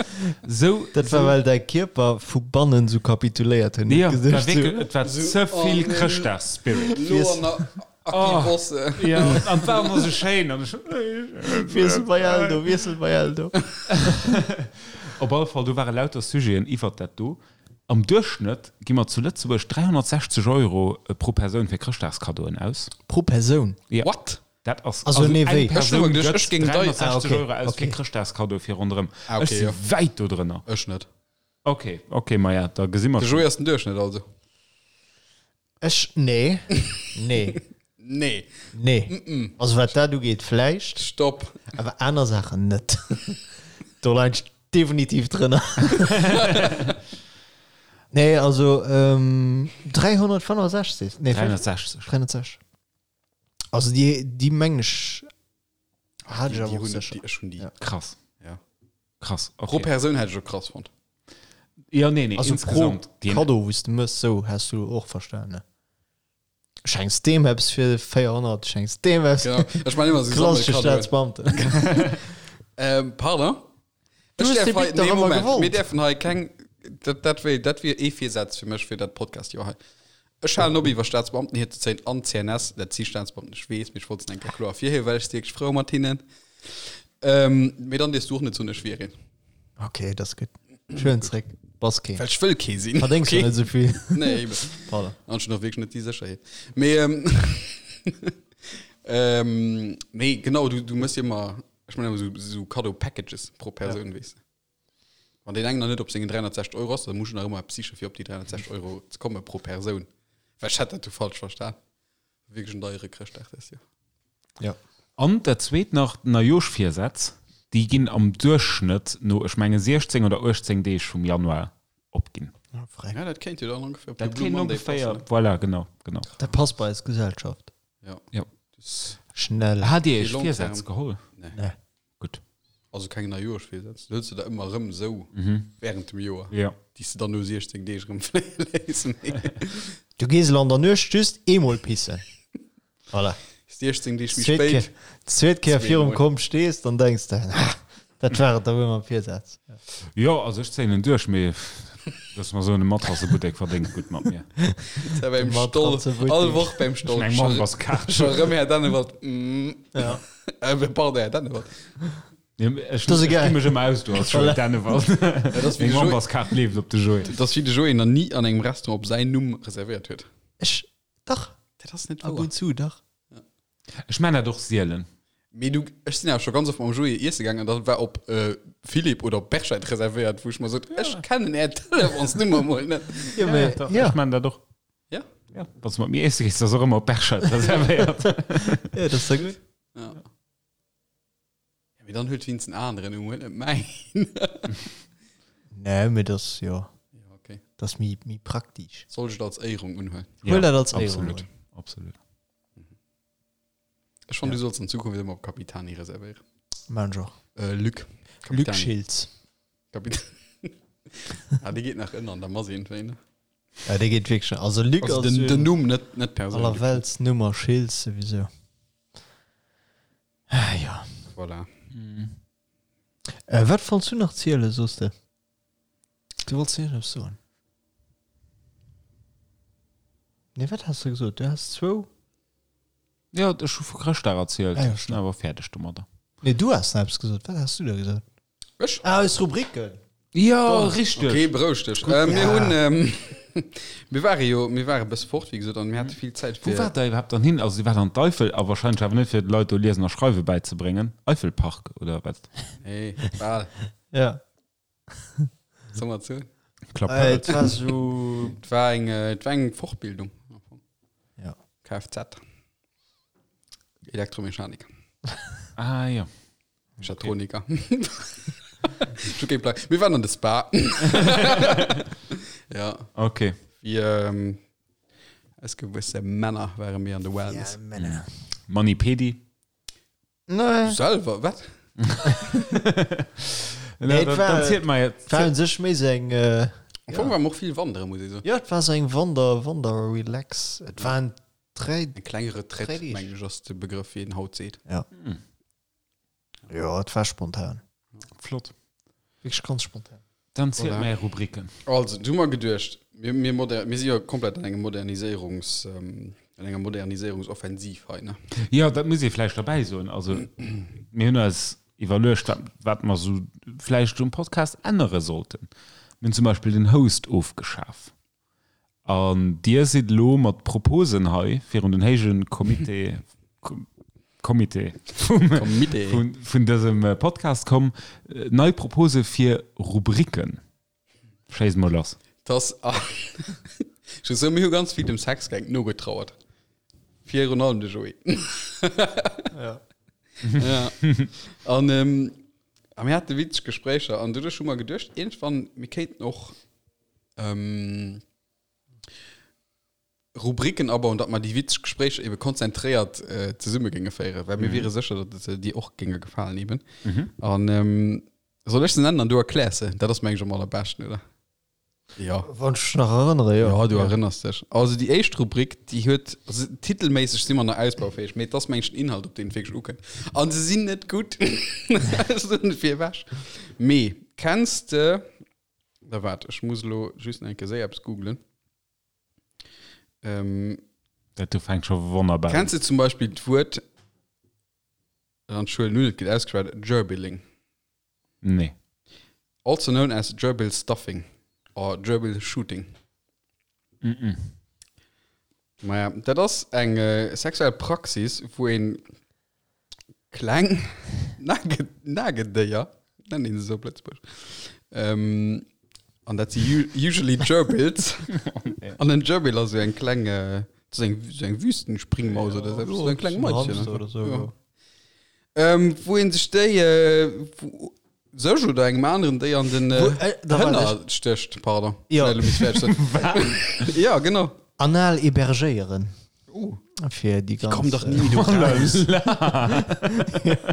sou, Dat war sou. well däi Kierper vu bannen sou kapituléiert huet. Ja, et war Gesicht wierklech, sou. et war Sou, ze oh vill nee, Chrëschtdagsspirit. Lo an der Aki Oh. Bosse. Ja, an et war och nach sou schéin an ech. Wiessel bei Eldo, wiessel bei Eldo. Op alle Fall, do ware lauter Sujeten iwwert dat do. Am Duerchschnëtt gi mer zu Lëtzebuerg 360 Euro pro Persoun fir Chrëschtdagskaddoen aus. Pro Persoun? Jo. What? Dat ass, Also also nee, eng wéi? Persoun Ech gëtt ech géing dei- 360 Ah, okay, Euro aus fir okay. Chrëschtdagskaddoe fir ronderëm. Ah, Ech okay, si jo. wäit do drënner. Ech net. Ok, ok, maja, da gesi mer De schonn. Joé ass den Duerchschnëtt also. Ech, nee, nee, Nee. nee. Also wat dat ugeet vläicht, Stopp. awer aner Saachen net. Do leien ech definitiv drënner. Nee, also ähm, 365, nee, 360. 360. Also déi, déi mengen ech hat ech Déi awer och hunn sécher. déi, ech hunn déi. Ja. Krass. Ja. Krass. Pro Okay. Persoun hätt ech och krass fonnt. Ja, nee, nee, Also pro insgesamt. Déi- Kaddo, wou s de mëss, sou has du och verstan, ne? Schenks deem eppes fir 400, schenks deem eppes. Genau. Ech man ëmmer sou Klassesche Sammelkaddoen. Staatsbeamten. Ähm, pardon? Du Ech hues däerf de hei, Bic dach nee, ëmmer Moment, gewollt. mir däerfen hei keng, dat, dat wier, dat wier ee Virsaz fir mech fir dat Podcast-Joer hei. Ech halen op iwwer Staatsbeamten hierzezéien an CNS, dat si Staatsbeamten, ech weess, mee ech wollt se eng Kéier kloer ervirhiewen, well ech si wierklech frou mat hinnen. Ähm, mee dann dierfs du och net soen, ech wier een. Okay, dat ass gutt. Schön zréck. Bass keen. Well ech wëll kee sinn. Verdéngs okay. net esou vill. Nee, eben. Pardon. An schon och wierklech net déi Sécherheet. Mee, ähm, ähm, nee, genau, du, du mëss ëmmer, ech mengen ëmmer sou, sou Cadeau-Packages pro Persoun, ja. weess de. Wann deen eng nach net op sengen 360 Euro ass, dann muss ech nach ëmmer eppes siche fir op déi 360 Euro ze komme pro Persoun. Well ech hätt dat du falsch verstan. Wierklech en deiere Chrëschtdag dëst Joer. Ja. An dat zweet nach, d'Neijoschvirsätz, déi ginn am Duerchschnëtt no, ech menge 16 oder 18 Deeg vum Januar opginn. Ah, freck. Ja, dat kéint jo dann ongeféier op de Dat Blue kéint Monday ongeféier, passen, ne? voilà, genau, genau. Dat passt bei eis Gesellschaft. Ja. Ja. Das, Schnell. Hat Dir Fir Iech long Virsätz term. geholl? nee. Nee. Gutt. Also keng Neijoerschvirsätz. Du hëls se der ëmmer erëm esou während dem Joer, Ja. déi s de dann no 16 Deeg erëm fléie léiss. Du gees elo an der Nuecht just eemol pissen. Voilà. 16 Deeg méi Zweet spéit. Kéier, zweet Kéier virum Zweemol. Komm stees, dann denks de, ah, dat war et da wuel mam Virsaz. Jo, also ech zéien en duerch, mee looss mer soen, de Matrassebuttek verdéngt gutt mat mir. Ja, beim Stoll, Matratze-Buttek. all Woch beim Stoll. Eng Memberskaart. Scho rëm Här Dennewald. Mm. Ja. Äh, pardon, Här Dennewald. Ja, ech Das ist ech geil. gi mech ëmmer aus do als Joé Dennewald. Ja, das Meng wie de Joé, Memberskaart leeft op de Joé. das wie de Joé nach nie an engem Restaurant op säin Numm reservéiert huet. Ech, dach, Dat ass net ab wouer. und zu, dach. Ech man dat och sielen. Mee du, ech sinn awer scho ganz oft mam Joé iesse gaangen an da war op äh, Philippe oder op Berscheid reservéiert, wou ech mer sot, ech kennen är Telefonsnummer mol net. Ja, mee, Dach, ja. Ech man dat och. Ja? Ja, wann du mat mir iesse gees, ass och ëmmer op Berscheid reservéiert. Ja, dat ass da gutt. Ja. Ja, mee dann huet wéinst en aneren Numm, huet net mäin. Nee, mee dat ass, jo, Ja, okay. dat ass méi, méi praktisch. Soll ech et als Éierung unhuelen? Huel dat als Éierung Absolut, un. absolut. Ech fand, du solls an Zukunft ëmmer op Capitani reservéieren. Maan ech och. Äh, Luc. Luc Capitani. Schiltz. Kapit ah, dee geet nach ënner an der Mass iergendwéi, ne? Ja, dee geet wierklech. Also Luc Also ass den, jo den Numm, net, net d'Persoun. Luc. Allerweltsnummer, Schiltz souwisou. Ah, ja. Voilà. Äh, wat wollts du nach zielen, soos de? Du wollts iergendeppes soen. Nee, wat has de gesot? Du has zwou. Ja, ech hu vu Chrëschtdag erzielt. Ah, ja, Ech sinn awer fäerdeg domadder. Nee, du has nach eppes gesot. Wat has du da gesot? Ech? Ah, eis Rubriken. Ja, richteg. Okay, beroueg dech. Äh, mir Ja. hunn, ähm, mir ware jo, mir ware e bësse fort, wéi gesot, an mir hate vill Zäit Wou fir. waart der iwwerhaapt dann hin? Also, dir waart an d'Eifel, a wahrscheinlech awer net fir de Leit do Liesen a Schreiwe bäizebréngen. Eifelpark oder wat? Nee, bal. Ja. Soll mer zu? Klapp. Äh, et war so. Et war eng, äh, et war eng Fortbildung. Ja. Kfz. Elektromechanik. Ah, ja. Mechatroniker. Ech hu kee Plang. Mir waren an de Spa. ja. Okay. Fir ähm, eis gewësse Männer ware mir an de Wellness. Ja, Männer. Mani Pedi. Nee. Selwer, wat? Nee, et dann, war- dann zielt mer jetzt. Et war un sech méi sou eng. Äh, Am Fong war mer och vill wandere, muss ich soen. ja, et war sou eng Wander, Wander Relax. Et waren dräi. Eng kleng Retraite, Dräi Deeg. mengen ech, ass de Begrëff, wéi een haut seet. Ja. Ja, et war spontan. Flott. Wierklech ganz spontan. Dann zielt Voilà. mer är Rubriken. Also, du hu mer geduecht, mir, mir, moder mir si jo komplett an engem Moderniséierungs, ähm, an enger Moderniséierungsoffensiv hei, ne? Jo, dat muss ee vläicht derbäi soen. Also, mir hunn eis iwwerluecht, wat, wat mer esou vläicht um Podcast ännere sollten. Mir hunn zum Beispill den Host ofgeschaf. An Dir sidd elo mat Proposen hei virun den héije Comité, Comité vum, Comité. vun, vun dësem Podcast komm, nei Propose fir Rubriken. Schéiss mol lass. Dass, ech muss soen, mir hu ganz vill dem Sexgang nogetrauert. Virun allem de Joé. Ja. Ja. An, ähm, a mir hate witzeg Gespréicher an doduerch hu mer geduecht, iergendwann, mir kéinten och, ähm,. Rubriken abauen, datt mer déi witzeg Gespréicher ebe konzentréiert zesumme géinge féieren, well mir wiere sécher, datt se dir och géinge gefalen eben. An soll ech se nennen an du erkläers se? Dat ass meng ech am allerbeschten, oder? Ja. Wann ech mech nach erënnere, jo. Ja, du erënners dech. Also déi éischt Rubrik, déi huet, also titelméisseg si mer nach ausbaufäeg, mee et ass meng ech den Inhalt, op deen et wierklech ukënnt. An se sinn net gutt. Ech soen et virewech. Mee kenns de, da waart, ech muss elo just nach eng Kéier séier eppes googlen. Ähm, Dat do fänkt scho wonnerbar un. Kenns de zum Beispill d'Wuert, an ech huelen un, et gëtt ausgeschwat, Gerbilling? Nee. Also known as Gerbil stuffing or Gerbil shooting. Mm -mm. Maja, dat ass eng sexuell Praxis, wou een kleng Nage Nagedéier, nennt een se esou op Lëtzebuerg, ähm, an dat si usually Gerbils. An en Gerbil ass esou eng kleng, dat ass eng, esou eng Wüstenspringmaus oder esou, esou eng kleng Maischen Hamster oder esou, ja. Ähm, wou een sech déi, wou sech oder engem aneren déi an den Wou, äh, da warte Hënner stécht, pardon. Ja. Schnell, elo muss ech fäerdeg sinn. Ja, genau. Anal hébergéieren. Uh. Fir déi ganz. Komm dach ni méi do raus.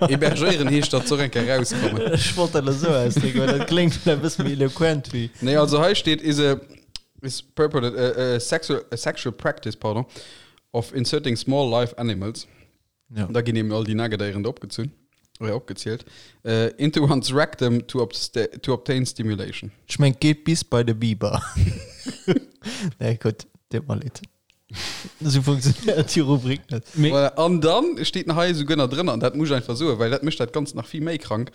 Hébergéieren heescht, datt se och eng Kéier rauskommen. Ech wollt dat elo esou ausdrécken, well dat kléngt vläicht e bësse méi eloquent wéi. Nee, also hei steet is a is purported a, a sexual a sexual practice, pardon, of inserting small live animals. Ja. Da ginn eben all déi Nagedéieren do opgezunn oder opgezielt äh, into one's rectum to, to obtain stimulation. Ech meng, geet bis bei de Biber. Nee, gutt, deet mer leed. Esou funktionéiert déi Rubrik net. Mee Voilà. An dann steet nach hei esouguer nach drënner, an dat muss ech einfach soen, well dat mécht dat Ganzt nach vill méi krank,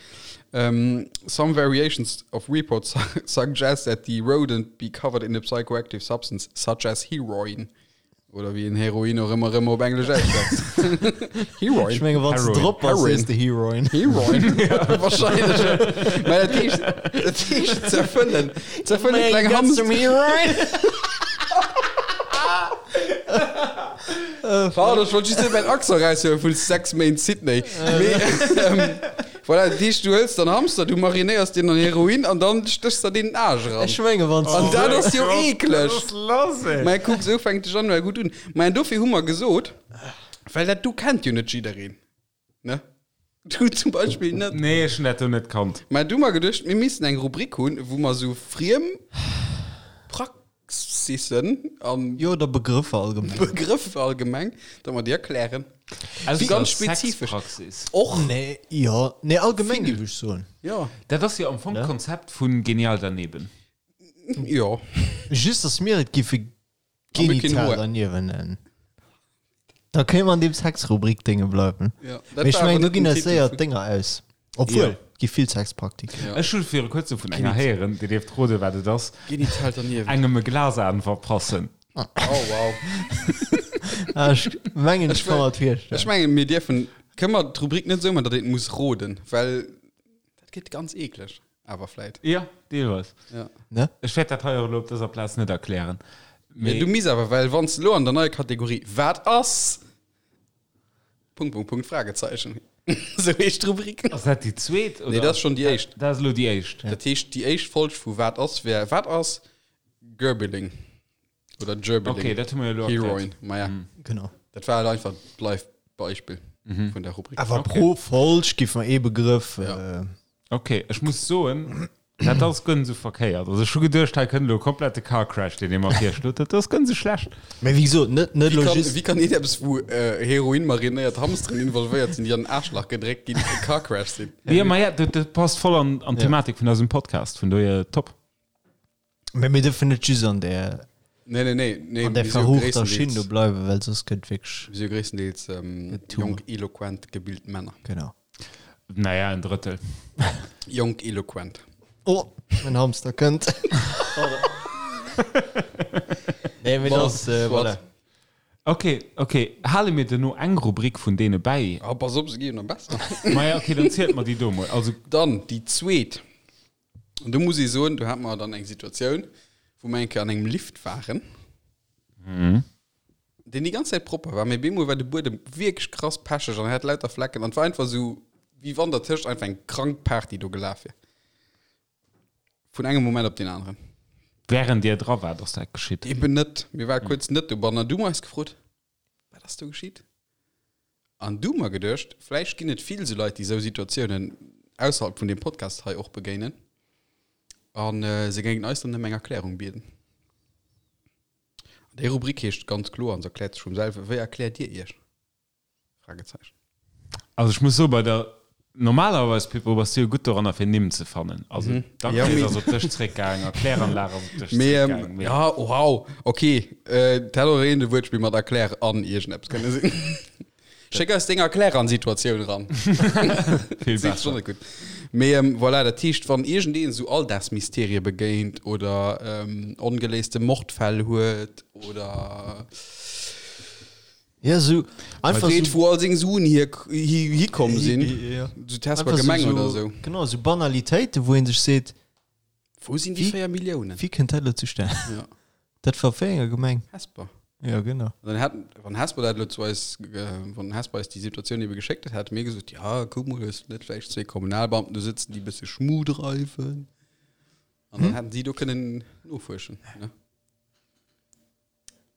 ähm, Some variations of reports suggest that the rodent be covered in a psychoactive substance such as heroin. Oder wéi een Heroin och ëmmer ëmmer op Englesch ausschwätzt. Heroin. Ech menge wann s de Heroin. drop bass, Heroin. sees de Heroin. Heroin. Wahrscheinlech. Mä dat heescht, dat heescht zerfëllen. Zerfëllen kleng Hamster. Heroin. Pardon, ech wollt just net mäin Accent eraushuelen vun 6 Méint Sydney. Mee, ähm, voilà, dat heescht, du hëls dann Hamster, du marinéiers deen an Heroin an dann stéchs der deen den Aarsch eran. Ech menge wann s An de dat ass jo eekleg. lass, ey. Mä kuck, esou fänkt de Januar gutt un. Mä dofir hu mer gesot, well dat do kennt jo net jiddereen, ne? Du zum Beispill net. Nee, ech hunn dat do net kannt. Mä du hu mer geduecht, mir missten eng Rubrik hunn, wou mer esou friem Praxissen an Jo, oder Begrëffer allgemeng. Begrëffer allgemeng, datt mer déi erklären. Ausser Ganz spezifesch. Sexpraxis. Och. Nee, jo, nee, allgemeng géif ech soen. Jo. Dat ass jo am Fong d'Konzept vu Genial daneben. Jo. Just, datt mir et géife A mir keen genital Hoer. derniewen nennen. Da kéint mer an deem Sexrubrik-Dénge bleiwen. Ja, dat Mee ech war awer mengen, do net ginn den eis Titel séier vun- d'Dénger aus. Obwuel, Ja. gi vill Sexpraktiken. Ja. Ech hu viru kuerzem vun enger héieren, Dir dierft roden, wat et ass, Genital derniewen. engem e Glasan verpassen. Oh, wow. Ah, ech mengen, ech Ech ka mer et Ech virstellen. mengen, mir dierfen, kënne mer d'Rubrik net esou maachen, datt een et muss roden, well dat gëtt ganz eekleg. Awer vläit. Ja, deelweis. Ja. Ne? Ech wäert dat hei och elo op dëser Plaz net erklären. Mee du misst awer, well wann s de elo an der neier Kategorie Wat ass? Punkt, Punkt, Punkt, Fragezeichen. Esou heescht d'Rubrik. Ass dat déi zweet? Nee, dat ass schonn déi éischt. Dat ass elo déi éischt. Dat heescht, déi éischt Folg vu Wat ass wär Wat ass Gerbilling? Oder Gerbilling. Okay, dat hu mer jo elo erkläert. Heroin. Maja, Genau. dat war halt einfach d'Live-Beispill vun der Rubrik. Awer pro Folg giff mer ee Begrëff. Ja. Äh, Okay, ech muss soen, dat ass guer net esou verkéiert. Also ech hu geduecht, hei kënnt elo e komplette Car Crash, deen ee mer virschlot. Dat ass guer net esou schlecht. Mä wéi gesot, net, net Wie elo kann, just. wie kann een eppes, wou äh, Heroin marinéiert Hamsteren involvéiert sinn, déi an den Aarschlach gedréckt ginn, e Car Crash sinn? Ja, ma ja, dat, dat passt voll an, an d'Thematik vun eisem Podcast, vun dohier top. Mä mir dürfen net just an där, Nee, nee, nee, nee, an där mir si jo verruchter Schinn do gréisstendeels, bleiwen, well soss gëtt wierklech. mir si jo gréisstendeels ähm, Gëtt too jonk, much. eloquent, gebilt Männer. Genau. Naja, en Drëttel. Jonk, eloquent. Oh, mein Hamster kënnt. Nee, mee Bon, das, äh, soit. voilà. Okay, okay. Hale mir duerno eng Rubrik vun deene bäi? Ah, pass op, se gi jo nach besser. Maja, okay, dann zielt mer déi do mol. Also, Dann déi zweet. An do muss ee soen, do hate mer dann eng Situatioun, wou mer eng Kéier an engem Lift waren, deen déi ganz Zäit propper war, mee bemol war de Buedem wierklech krass pecheg an hat lauter Flecken an et war einfach esou, wéi wann dertëscht einfach eng krank Party do gelaf wier. Vun engem Moment op deen aneren. Während Dir dra waart, ass dat geschitt? Eben net. Mir ware kuerz net dobannen an du hu mer eis gefrot, Wat ass do geschitt? An du hu mer geduecht, vläicht ginn et vill esou Leit, déi esou Situatiounen ausserhalb vun deem Podcast hei och begéinen a se géingen eis dann ëm eng Erklärung bieden. An déi Rubrik heescht ganz kloer, an se erkläert sech vum selwen, Wéi erkläert Dir Iech? Fragezeichen. Also ech muss soen, bei der, normalerweis Pippo, bass du jo gutt doranner fir Nimm ze fannen. Also mhm. Dankes ass op dech zréckgaang, Erkläranlag ass op dech zréckgaang. Ähm, ja, wow, okay. Äh, dat hätt och een Wuertspill mat Erklär an iergendeppes kënne sinn. Schéck eis deng Erklär an Situatioun ran. Vill besser. Gutt. Mee ähm, voilà, dat heescht, wann iergendeen esou Alldagsmysterie begéint oder ähm, ongeléiste Mordfäll huet oder Ja, so einfach Freet, so, wou all seng Suen hier, hi, hikomm sinn. Ja. So Test bei Gemeng so, oder sou. Genau, so Banalitéiten, wou een sech seet, Wou sinn déi 4 Milliounen? Wéi kënnt dat elo zustan? Ja. Dat war wéi enger Gemeng? Hesper. Ja, genau. Dann hat, wann Hesper dat elo zu eis, wann Hesper eis déi Situatioun ebe geschéckt hätt, hätte mir gesot, ja, kuck mol, hues du net vläicht zwee Kommunalbeamten do sëtzen, déi e bësse Schmu dreiwen? An dann hätten si do kënnen nofuerschen, ne?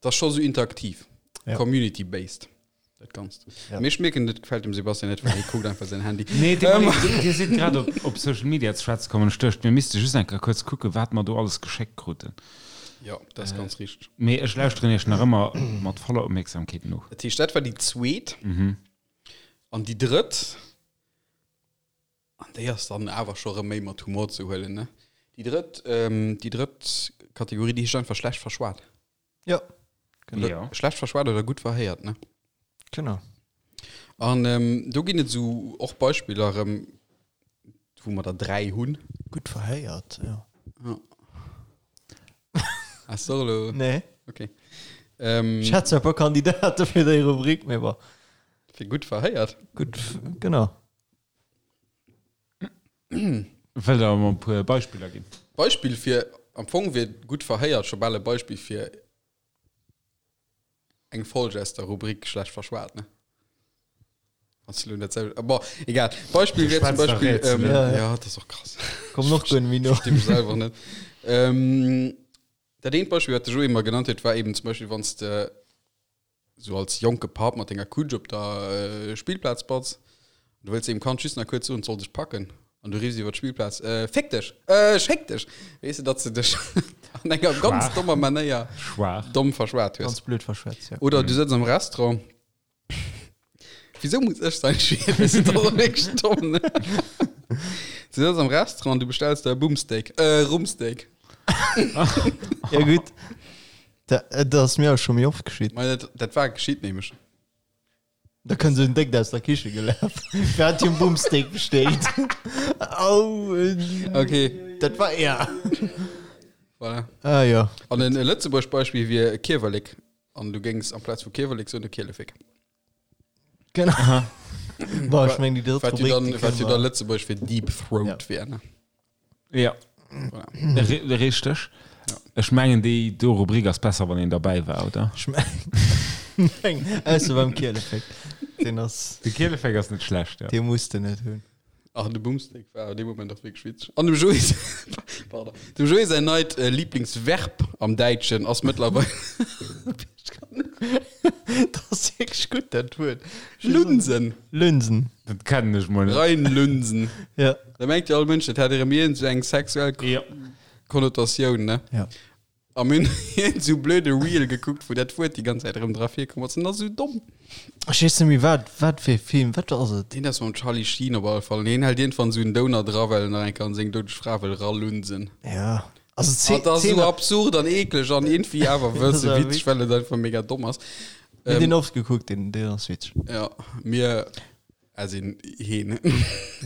Dat ass scho sou interaktiv, Ja. community-based, dat Ganzt. Ja. Mee ech mierken, dat gefält dem Sebastian net, well hie kuckt einfach säin Handy. Nee, dir, ähm. dir sidd grad op, op Social Media ze schwätze kommen. Ech duecht, mir misste just eng Kéier kuerz kucken, wat mer do alles geschéckt kruten. Ja, dat ass ganz richteg. Mee ech lauschteren iech nach ëmmer mat voller Opmierksamkeet no. Dat heescht, dat war déi zweet. An déi drëtt, an déi ass dann awer scho rëm méi mat Humor ze huelen, ne? Déi drëtt, déi drëtt Kategorie, déi heescht einfach schlecht verschwat. Ja. Genau. Ja. Schlecht verschwat oder gutt verhéiert, ne? Genau. An ähm, do ginn et sou och Beispiller erëm, wou mer der 3 hunn. Gutt verhéiert, ja. Ja. Hast du elo? Nee. Okay. Ähm, Ech hätt zwar e puer Kandidate fir déi Rubrik, mee bon. Fir gutt verhéiert? Gutt, genau. Wëllt Der mer e puer Beispiller ginn? Beispill fir, am Fong wier gutt verhéiert scho bal e Beispill fir eng Folg aus der Rubrik schlecht verschwat, ne? Wann s du elo dat selwecht, bon, egal. Beispill wier zum Schwätzt a Beispill, Rätselen. ähm, Ja, ja. ja, dat ass och krass. Kommen och guer net méi no. Versti mech selwer net. Ähm, dat eent Beispill, wat de Joé mer genannt huet, war eben zum Beispill, wann s de Sou als jonke Papp mat denger Kutsch op der Spillplaz batz, du wëlls deem Kand just nach kuerz soen, et soll sech packen, an du riffs iwwer d'Spillplaz, Äh, féck dech! Äh, schéck dech! Weess de, datt s de dech an enger ganz Schwaach. dommer Manéier Schwaach. domm verschwat hues. Ganz blöd verschwätzt, ja. Oder du sëtz am Restaurant. Wisou muss ech sein Schwier? Dat ass och wierklech domm, ne? Du sëtz am Restaurant, du bestells der e Bumsteak, äh, Rumpsteak. Ja, gutt. Dat, dat ass mir och scho méi oft geschitt. Mei dat, dat war geschitt nämlech. Da kënnt esou en Déckt aus der Kiche gelaf. Wer hat hier en Bumsteak bestellt? Au, äh, Okay, dat war er. voilà. Ah ja. An en Lëtzebuerg Beispill wier Kiewerlek. An du géings amplaz vu Kiewerlek soen de Kielefek. Genau. Bon, ech meng déi drëtt Wat jo Rubrik, dann, déi wat kënne jo da mer. Lëtzebuerg fir Deep Throat Ja. wier, ne? Ja. Voilà. Richteg. Ja. Ech mengen déi do Rubrik ass besser wann een derbäi war, oder? Ech meng, ausser beim Kielefek. Deen ass, De Kielefek ass net schlecht, ja. dee muss de net hunn. Ach, de Boomstick war an deem Moment och wierklech witzeg. An dem Joé, pardon, dem Joé säin neit äh, Lieblingsverb am Däitschen ass mëttlerweil Dat ass wierklech gutt, dat Wuert. Lunsen. Lunsen. Dat kennen ech mol net. Reinlunsen. Ja. Da mengt jo all Mënsch, dat hätt erëm iergend sou eng sexuell Ja. Konnotatioun, ne? Ja. A mir hunn iergend sou blöde Reel gekuckt, wou dat Wuert déi ganz Zäit erëm dra virkomm ass. En ass sou domm. Ech weess net méi, wat, wat fir e Film, wat ass et? Deen ass mam Charlie Sheen op alle Fall. An hien hält iergendwann sou en Downer dra, well en nach eng Kéier an seng doudeg Fra wëll ralunsen. Ja. Also Ah, dat ass d'Zeen, sou absurd an eekleg an iergendwéi awer Dat wësse ass awer witzeg, well et einfach mega domm ass. mir hunn Ähm, deen oft gekuckt, deen, deen ass witzeg. ja, mir as in heen.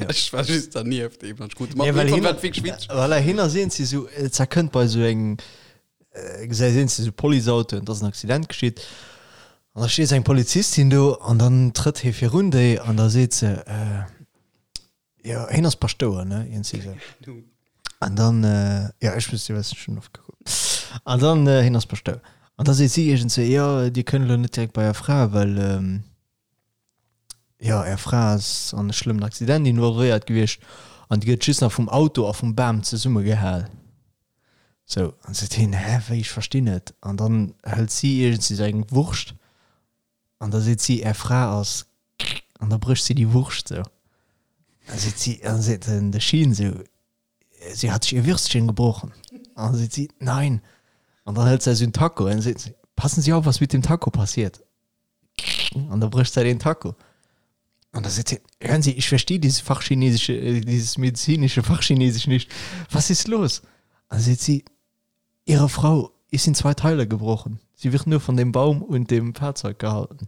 Ech war just dernieft eben an krut mat. Ja, well Irgendwann hin, war et wierklech witzeg. voilà, hin ass een sou, et zerkënnt bei sou engem, äh, gesäit een sou Policeautoen, et ass en Accident geschitt. An da steet sou eng Polizistin do an dann trëtt hie virun déi an da seet se, äh, jo, hien ass Paschtouer, ne, iergendwéi sou. An dann, äh, ja, ech muss, ech schon oft gekuckt. An dann, äh, hien ass Paschtouer. An da seet si iergendwéi, jo, Dir kënnt elo net direkt bei Är Fra, well, ähm, Jo, är Fra ass an e schlëmmen Accident involvéiert gewiescht an déi gëtt just nach vum Auto a vum Bam zesummegehal. Sou, an seet hien, hä, wéi, ech verstinn net. An dann hëlt si iergendwéi sou eng Wurscht an da seet si, är Fra ass, an da brécht si déi Wurscht sou. An da seet si, an da seet den de Sheen sou, sie hat sich ihr Würstchen gebrochen. An da seet si, nein. An dann hëlt se sou en Taco an seet si, passen Sie auf, was mit dem Taco passiert. An da brécht se den Taco. An da seet si, hören Sie, ich verstehe dieses Fachchinesische, äh, dieses medizinische Fachchinesisch nicht. Was ist los? An da seet si, Ihre Frau ist in zwei Teile gebrochen. Sie wird nur von dem Baum und dem Fahrzeug gehalten.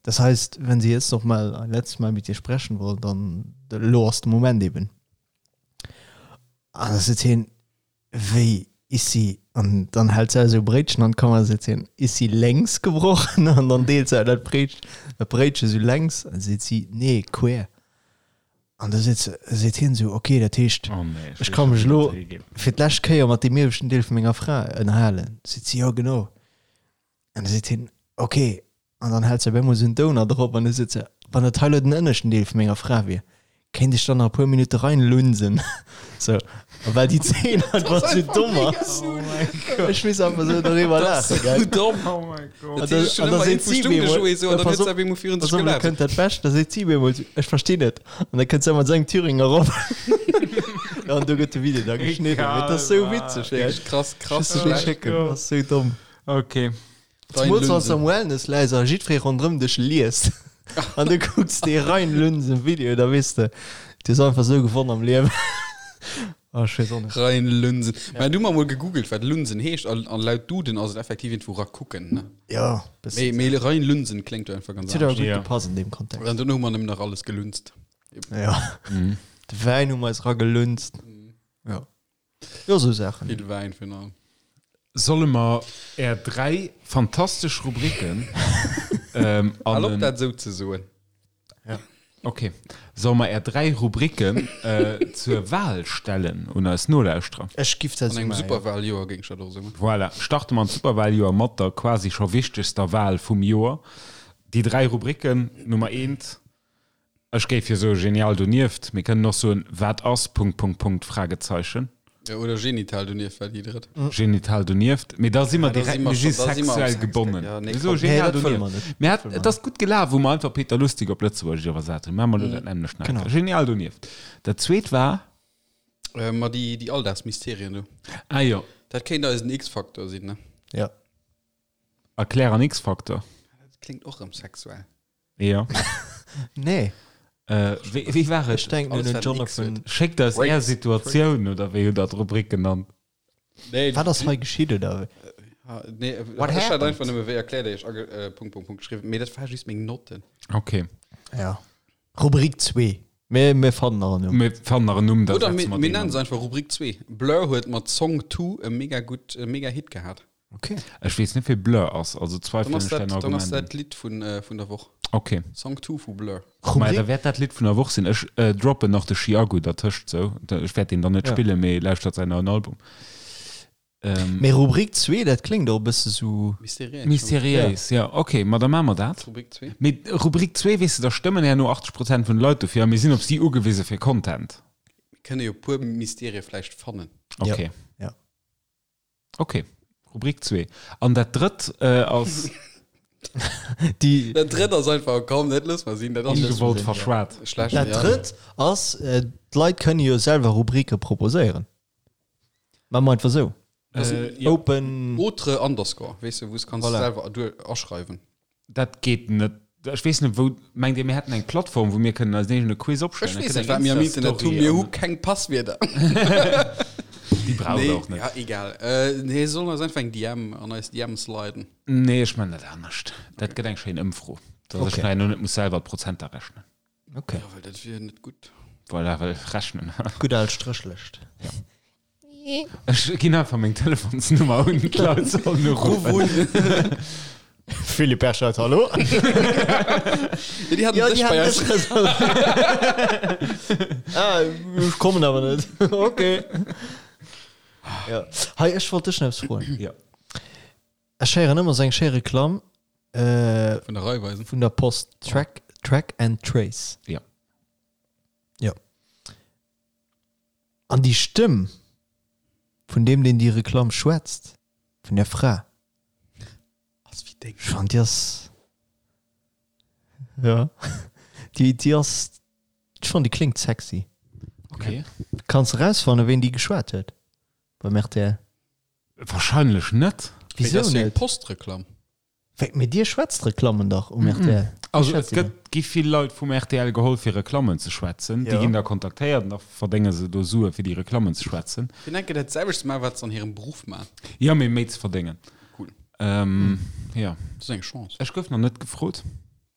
Das heißt, wenn Sie jetzt noch mal ein letztes Mal mit ihr sprechen wollen, dann elo ass de Moment eben. An da seet hien, Wéi is si? An dann hält se esou e Bréitchen an d'Kamera, seet hien, Is sie längs gebrochen? An dann deelt se dat Bréitchen, dat Bréitchen esou längs. An seet si, Nee, quer. An da seet se, seet hien esou, Okay, dat heescht, Oh nee, ech ka mech elo fir d'lescht Kéier mat deem ieweschten Deel vu menger Fra ënnerhalen. Seet si, Jo, genau. An da seet hien, Ok. An dann hält se op eemol esou en Downer drop an da seet se, Wann dat hei elo den ënneschten Deel vu menger Fra wier, kéint ech dann nach e puer Minutte reinlunsen? Sou, a well déi Zeen einfach sou domm ass. Ech muss einfach sou doriwwer laachen, gell? Domm. Oh mein Gott. An da, an da seet si op eemol, pass op, pass op, elo kënnt dat Bescht, da seet si op eemol sou, Ech verstinn net. An da kënnt se mat sengem Thüringer erop. Ja, an do gëtt de Video da geschnidden. Mee dat ass sou witzeg, gell? Krass, krass. Ech muss dech schécken, dat ass sou domm. Okay. Zemools wann s de am Wellness läis a jiddweree ronderëm dech liest an du kucks dee Reinlunsen Video, da weess de, du hues einfach sou gewonn am Liewen. Oh, ech weess och net. Reinlunsen. Mä du hu mer mol gegoogelt, wat Lunsen heescht, an an laut Duden ass et effektiv iergendwou rakucken, ne? Jo, bëssen. Mee mee reinlunsen kléngt jo einfach ganz Et huet awer anescht. gutt Ja. gepasst an deem Kontext. An dono hu mer nëmmen nach alles gelunzt. Ja. De Wäin hu mer eis ragelunzt. Jo. Jo, sou Saachen. Vill Wäin virun allem. Solle mer är 3 fantastesch Rubriken an Hal op en. dat esou ze soen. Ok. Solle mer är 3 Rubriken zur Wahl stellen un eis Nolauschterer? Ech giff dat An sou engem maachen, jo. Superwahljoer géing ech dat och esou maachen. Voilà, starte mer an d'Superwahljoer mat der quasi scho wichtegster Wahl vum Joer. Déi 3 Rubriken, Nummer eent, Ech géif jo soe genial donieft, mir kënnen och soen wat ass Punkt Punkt Punkt Fragezeichen. Jo, oder genital donieft war déi drëtt. Genital donieft, mee da si mer Ja, da si direkt, mer mir si scho, da si mer am sexuell Sex, gebonnen. ja, nee, Mir soe komm. Nee, genial dat wëlle donieft. mer net. Mir Dat hat, wëlle mer et ass gutt gelaf, wou mer einfach Peter Lustig op Lëtzebuergesch iwwersat hunn. Maache mer elo dat nämmlecht nach eng Genau. Kéier. Genial donieft. Dat zweet war? Äh, ma déi, déi Alldagsmysterien do. Ah jo. Dat kéint eisen X-Faktor sinn, ne? Ja. Erklär an X-Faktor. Dat kléngt och erëm sexuell. Ja. Nee. Äh, wéi, wéi war et? Ech denken un Alles, den wat en X Jonathan. huet. Schéckt eis är Situatioun, oder wéi hutt der d'Rubrik genannt? Nee, Wat ass hei geschitt, oder wéi? Ha, nee, What ech hat happened? einfach nëmme wéi erkläert Iech age, äh, Punkt, Punkt, Punkt geschriwwen, mee dat war just meng Notten. Okay. Ja. Rubrik 2. Mir, mir fannen nach en Numm. Mir fannen nach en Numm, da Oder setze mir, mer mir deen nennen an. se einfach Rubrik 2. Blur huet mat Song 2 e mega gutt, e mega Hit gehat. Okay. Ech weess net, wee Blur ass, also Dann zweifelen ass ech däin dat, dann ass Argument dat un. d'Lidd vun, äh, vun der Woch. Okay. Song 2 vu Blur. Maja, Rubrik? da wäert dat Lidd vun der Woch sinn. Ech äh, droppen nach de Chiago dertëscht, sou. Ech wäert deen dann net Ja. spillen, mee lauschtert säin neien Album. Ähm, Mee Rubrik 2, dat kléngt och e bësse sou. Mysteriéis. Mysteriéis, ja. Okay, ma da maache mer dat. Rubrik 2. Mee Rubrik 2, weess de, da stëmmen herno 80 Prozent vun de Leit dofir a mir sinn op si ugewise fir Content. Mir kënne jo e puer Mysterie vläicht fannen. Okay. Ja. Okay, Rubrik 2. An dat drëtt äh, ass Déi, Dat drëtt ass einfach, komm, dat loosse mer sinn. Dat ass ongewollt verschwat. schlecht. dat ja. drëtt ass, äh, d'Leit kënne jo selwer Rubrike proposéieren. Maache mer einfach sou. Äh, ja. Open. Autre underscore, weess de, wou s kanns Voilà. selwer duer aschreiwen. Dat geet net. Ech weess net, wou. Mengt Dir, mir hätten eng Plattform, wou mir kënnen eisen eegene Quiz Ech opstellen? weess Da net, kënnt wat eng mir am Internet hunn. Insta-Story Mir hu an keng Passwierder. Déi braucht Nee, der och net. ja, egal. Äh, nee, sollen eis einfach eng DM an eis DM sliden. Nee, ech man dat anescht. Dat gëtt eng schéin Ëmfro, dass ech Okay. nachher nur net muss selwer d'Prozenter rechnen. Okay. Ja, well dat wier net gutt. Voilà, well rechnen. Gutt al Stréchlëscht. Ech ginn einfach meng Telefonsnummer un, d'Leit sollen uruffen. Philippe Berchert, hallo? Ja, déi haten Ja, dech déi bei haten eis. dech reservéiert. Ah, ech kommen awer net. Okay. Ja. Hei, ech wollt dech nach eppes froen. Ja. Ech héieren ëmmer esou eng schéi Reklamm äh, Vun der Raiffeisen. vun der Post. Track, Track and Trace. Ja. Ja. An déi Stëmm. vun deem, deen déi Reklamm schwätzt, vun där Fra, Ass wéi deng. ech fannen déi ass, jo, déi, déi ass, ech fannen déi kléngt sexy. Okay. Kanns erausfannen, ween déi geschwat huet beim rtl? Wahrscheinlech net. Mee Wisou dat ass jo eng net? Postreklamm. Wéi, mee dir schwätzt Reklammen dach um rtl. Also et gëtt, gi vill Leit vum rtl geholl fir Reklammen ze schwätzen. Déi ginn da kontaktéiert an da verdénge se do Sue fir déi Reklammen ze schwätzen. Fir enke dat selwecht ze maachen, wat se an hirem Beruff maachen. Jo, mee méi ze verdéngen. Cool. Jo. Dat ass eng Chance. Ech gouf nach net gefrot.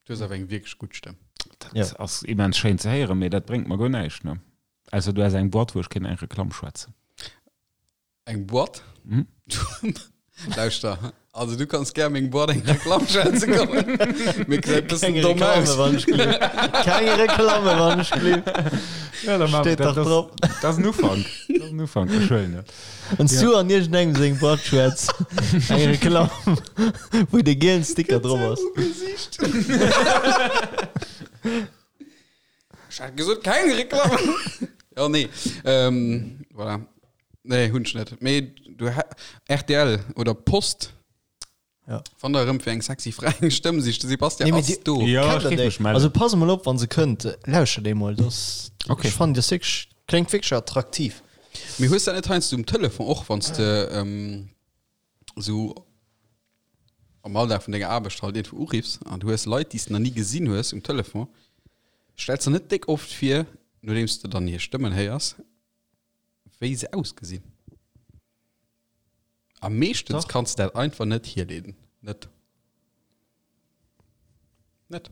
Du hues awer eng wierklech gutt Stëmm. Dat ass immens schéin ze héieren, mee dat bréngt mer guer näischt, ne? Ausser du häss eng Boîte, wou ech kéint eng Reklamm schwätzen. Eng Boîte? Mhm. Lauschter, also du kanns gär meng Boîte eng Reklamm schwätze kommen. Mir gesäit bëssen Keng domm Reklamme aus. wann ech gleef. Keng Reklamme wann ech gleef. Ja, da Steet dat dach ass, drop. dat ass en Ufank. Dat ass en Ufank, ech huelen et. Wann s du an iergendengem seng Boîte schwätz, eng Reklamm, wou de gielen Sticker drop ass. Gesicht. Ech hat gesot keng Reklamm. Ja, nee. Ähm, voilà. Nee, hunn ech net. Mee du rtl oder Post. Ja. Wann der erëm fir eng sexy Fra eng Stëmm sicht, de Sebastian Nee, mee ass di- do. Ja, Kennt ech der géif déi? mech mellen. Also pass emol op, wann se kënnt, lauschtert déi mol. Das, Okay. Ech fannen déi ass wierklech, kléngt wierklech attraktiv. Mee hues dat net heiansdo um Telefon och, wann s de ähm, sou am Alldag vun denger Aarbecht halt iergendwou uriffs an du hues Leit, déi s de nach ni gesinn hues um Telefon, stells der net déck oft vir, nodeems de dann hir Stëmmen héiers, wéi se ausgesinn. A meeschtens Dach. kanns de dat einfach net hierleeden. Net. Net.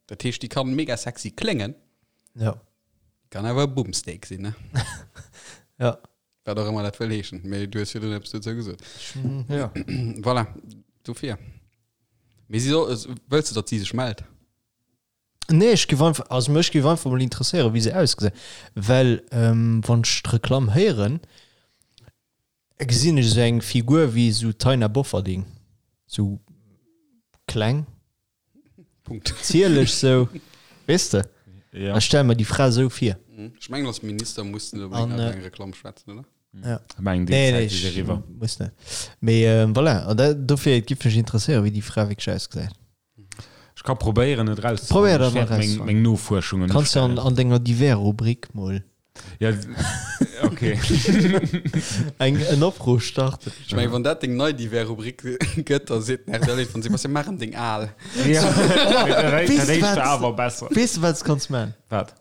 Dat heescht, déi kann mega sexy kléngen, Ja. kann awer e Bumsteak sinn, ne? Ja. Wat och ëmmer dat wëll heeschen. Mee du hues virdrun eppes dozou gesot. Ja. Voilà, dofir. Mee si soll, wëlls de, datt si sech mellt? Nee, ech géif einfach, also mech géif einfach mol interesséieren, wéi se ausgesinn. Well ähm, wann ech d'Reklamm héieren, gesinn ech esou eng Figur wéi esou Taina Bofferding. Sou kleng, Punkt. zierlech sou, weess de? Ja. Ech stelle mer déi Fra esou vir. Ech mengen, als Minister muss de An, unbedéngt äh, eng Reklamm schwätzen, oder? Ja. Ich mengen, déi Nee, Zäit nee, ist ech eriwwer. muss net. Mee ähm, voilà, an dat, dofir et giff mech interesséieren, wéi déi Fra wierklech ausgesäit. Ech ka probéieren et raus. Probéier dat Ech mal wäert meng, rauszefannen. meng Nofuerschungen Kanns du an, ustellen. an denger Divers-Rubrik mol Ja, okay. eng en Opruff starten. Ech mengen, wann dat deng nei Divers-Rubrik gëtt, da seet den RTL van Sebastian, maach em deng al. Ja. Dat Weess du éischt wat? war awer besser. Weess du, wat s kanns man? Wat?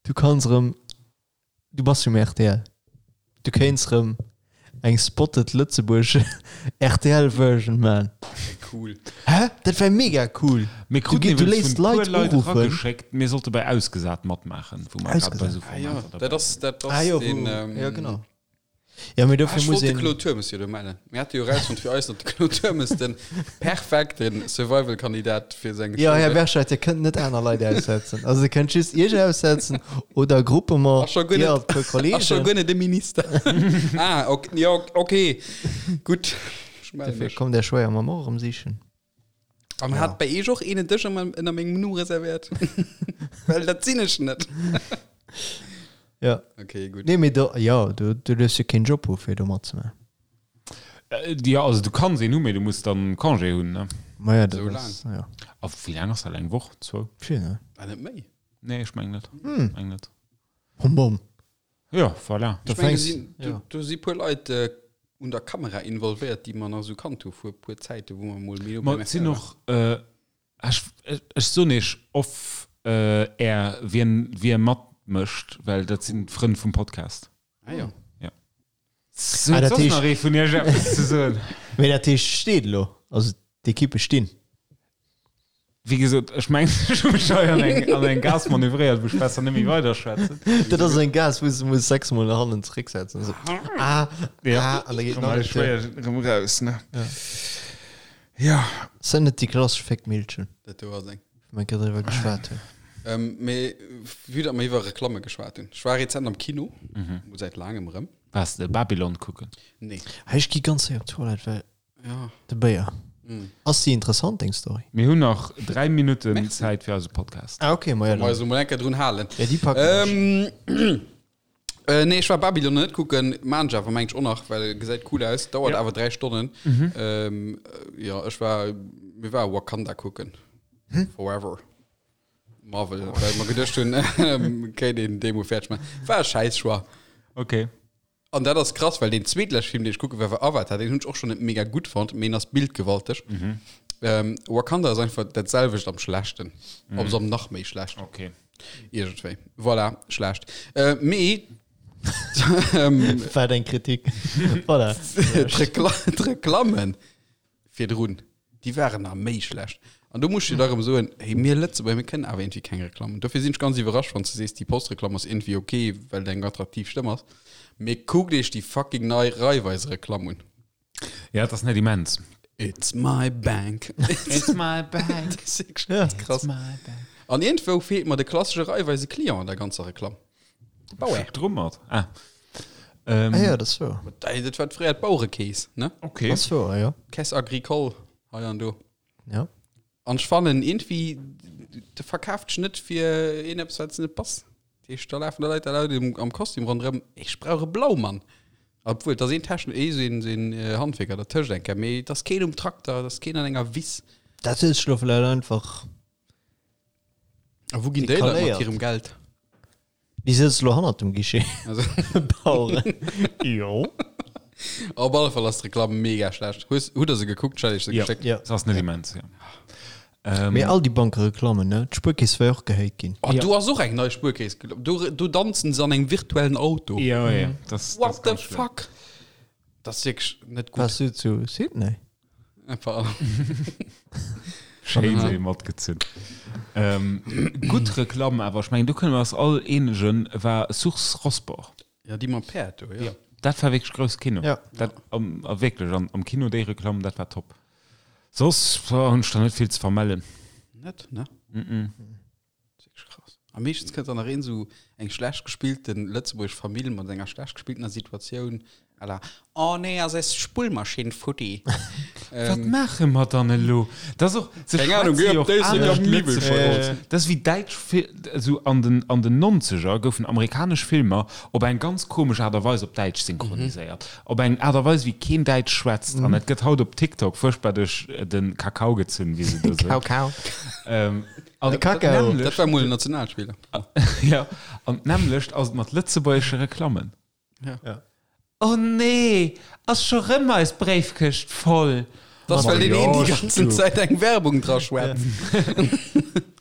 Du kanns erëm, du bass jo um rtl, du kéints erëm eng Spotted Lëtzebuerg RTL Version man. Cool. Hä? Dat wär mega cool. Mir Du, kruten du iwwregens léisst vun puer Leit Leit uruffen. erageschéckt, mir sollte bei Ausgesat matmaachen, wou mer grad bei Ausgesat. esou Ah, ja, Formater dabei dat ass, dat ass Ah jo, den, wou, ähm, ja genau. Ja, mee Ah, dofir ech muss wollt de een. Claude Turmes jo do mellen. Mir hate jo erausfonnt fir eis, datt de Claude Turmes den perfekte Survival-Kandidat fir seng Ja, Show Här wär. Berscheid, Dir kënnt net aner Leit aussetzen. Also Dir kënnt just Iech aussetzen oder Groupement, Ass scho guer Dir net, a puer ass scho Kollegen. guer net de Minister. Ah, ok, jo, okay, gutt. Ech melle Dofir mech. kommt Är Schwéiermamm och erëm sichen. An Ja. hat bei Iech och een en Dësch ënner mengem Numm reservéiert? Well dat sinn ech net. Ja. Okay, gutt. Nee, mee do, ja, du, du duerfs jo keen Job hu fir do matzemaachen. Äh, ja, also du kanns een hu, mee du muss dann Congé hunn, ne? Ma ja, dat Sou ass, ja. A wéi laang ass dat? Eng Woch? Zwou? Vill, ne? Ah, net méi. Nee, ech meng net. Hm. Meng net. Bom, bom. Ja, voilà. Da Ech meng, do fänks, sinn, do, ja. do si puer Leit äh, un der Kamera involvéiert, déi mer nach sou kannt hu vu puer Zäite, wou mer mol méi no Ma beim et sinn RTL och, äh, ech, ech soen iech off äh, air, wien, wie matmécht, well dat sinn d'Frënn vum Podcast. waren. Ah, jo. Ja. So, Ah, dat soss heescht- nach ee vun iech eppes ze soen? Mee dat heescht, steet elo. Also d'Ekippe stinn. Wéi gesot, ech mengen, ech hu mech hei an eng, an eng Gaass manövréiert, wou ech besser net méi weiderschwätzen. Dat ass eng Gaass, wou s de muss sechsmol no hannen zerécksetzen. Esou, ah, Ja. ah, an da geet Komm nach hei eng Tür. schwéier erëm raus, ne? Ja. Sinn net déi klassesch Féckmillchen, Dat do ass eng. wou mer grad driwwer geschwat hunn. Ähm, mee vue datt mer iwwer Reklamme geschwat hunn. Ech war rezent am Kino, mol säit laangem erëm. Waars de Babylon kucken? Nee. Hey, ech gi ganz séier op d'Toilette, well Ja. de Béier. Ass déi interessant, deng Story? Mir hunn nach 3 Minutten Merci. Zäit fir eise Podcast. Ah, okay, ma ja, Mal dann. so mal enker drun halen. Ja, déi packen ech. Ähm, Äh, nee, ech war Babylon net kucken, maan ech awer mengt ech och nach, well gesäit cool aus, dauert Ja. awer 3 Stonnen. Ähm, äh, ja, ech war, mir war Wakanda kucken. Forever. Marvel, well mer geduecht hunn, ähm, kéint een dee mol fäerdeg maachen. War e schäiss Choix. Okay. An dat ass krass, well deen zweetleschte Film, deen ech kucke war, war Avatar. Deen hunn ech och schonn net mega gutt fonnt, mee en ass bildgewalteg. Ähm, Wakanda ass einfach dat selwecht am Schlechten. Op am nach méi schlecht. Okay. Iergendwéi. Voilà, schlecht. Äh, mee ähm, War eng Kritik. Voilà. D'Reklammen virdrun, déi waren nach méi schlecht. An do muss ech dir da erëm soen, hey, mir Lëtzebuerger, mir kënnen awer iergendwéi keng Reklammen. Dofir sinn ech ganz iwwerrascht, wann s de sees, déi Postreklamm ass iergendwéi ok, well et eng attraktiv Stëmm ass. Mee kuckt iech déi fucking nei Raiffeise-Reklamm un. Ja, et ass net immens. It's my bank. It's my bank. Das ist wirklich ja. krass. My bank. An irgendwou feelt mer de klassesche Raiffeise Client an der ganzer Reklamm. Bauer. Drummert. Ah. Ähm, ah ja, das war. Dat war fréier d'Bauerekeess, ne? Okay. Das war, ja. Caisse agricole hei an do. Ja. An ech fannen irgendwie de verkaaft dech net fir een eppes wat net passt. Dat heescht da lafen da Leit da Leit am Kostüm ronderëm. Ech brauch e Blaumann. Obwuel et ass een Techn ee sou een sou een Handwierker dertëscht eng Kéier, mee et ass keen um Trakter, et ass keen an enger Wiss. Dat huet sech lo vläicht einfach. A wou ginn déi Leit mat hirem Geld? Déi sëtze lo hannert dem Guichet. Also. Baueren. Jo. Op alle Fall ass d'Reklamm mega schlecht. Hues, hutt der se gekuckt? Ech hat iech se Ja. geschéckt. Ja. Das ass net immens, ja. Ähm, Mee all déi Bankereklammen, ne? D'Spuerkeess war jo och gehéit ginn. Oh, do ass och eng nei Spuerkeess. Do, do danzen se an engem virtuellen Auto. Ja, ja, das, What das the ganz schlimm. fuck? Das ist wirklich net gut. Warst du zu Sydney? Einfach. Schéin se matgezunn. Ähm, gutt Reklamm awer, ech mengen do kënne mer eis all eenegen, war Source Rosport. Ja, déi mam Päerd do, ja. Dat war wierklech grouss Kino. Ja. Dat, am, a wierklech, an, am Kino déi Reklamm, dat war top. Soss hunn ech der net vill ze vermellen. Net, ne? Mm -mm. Krass. A meeschtens kënnt dann nach een esou eng schlecht gespillten lëtzebuergesch Famill mat enger schlecht gespilltener Situatioun à la Oh nee, ass eis Spullmaschinn futti. Wat maache mer dann elo? Dat ass och, se Keng Ahnung, schwätze geh jo op och Déislek anescht am Miwwel Lëtzebuergesch. verkooft. Dat ass wéi däitsch Fil-, esou an den, an den Nonzeger goufen amerikanesch Filmer op eng ganz komesch Aart a Weis op Däitsch synchroniséiert. Op eng Aart a Weis, wéi keen Däitsch schwätzt. An et gëtt haut op TikTok fuerchtbar duerch de Kakao gezunn, wéi se do soen. Kakao. An De Kakao. Dat war mol en Nationalspiller. Ja, an d'nämmlecht ass et mat lëtzebuergesche Reklammen. Ja. Ja. Oh nee, ass scho rëm eis Bréifkëscht voll. Dat ass, well deen een déi ganzen Zäit eng Werbung dra schwätzt.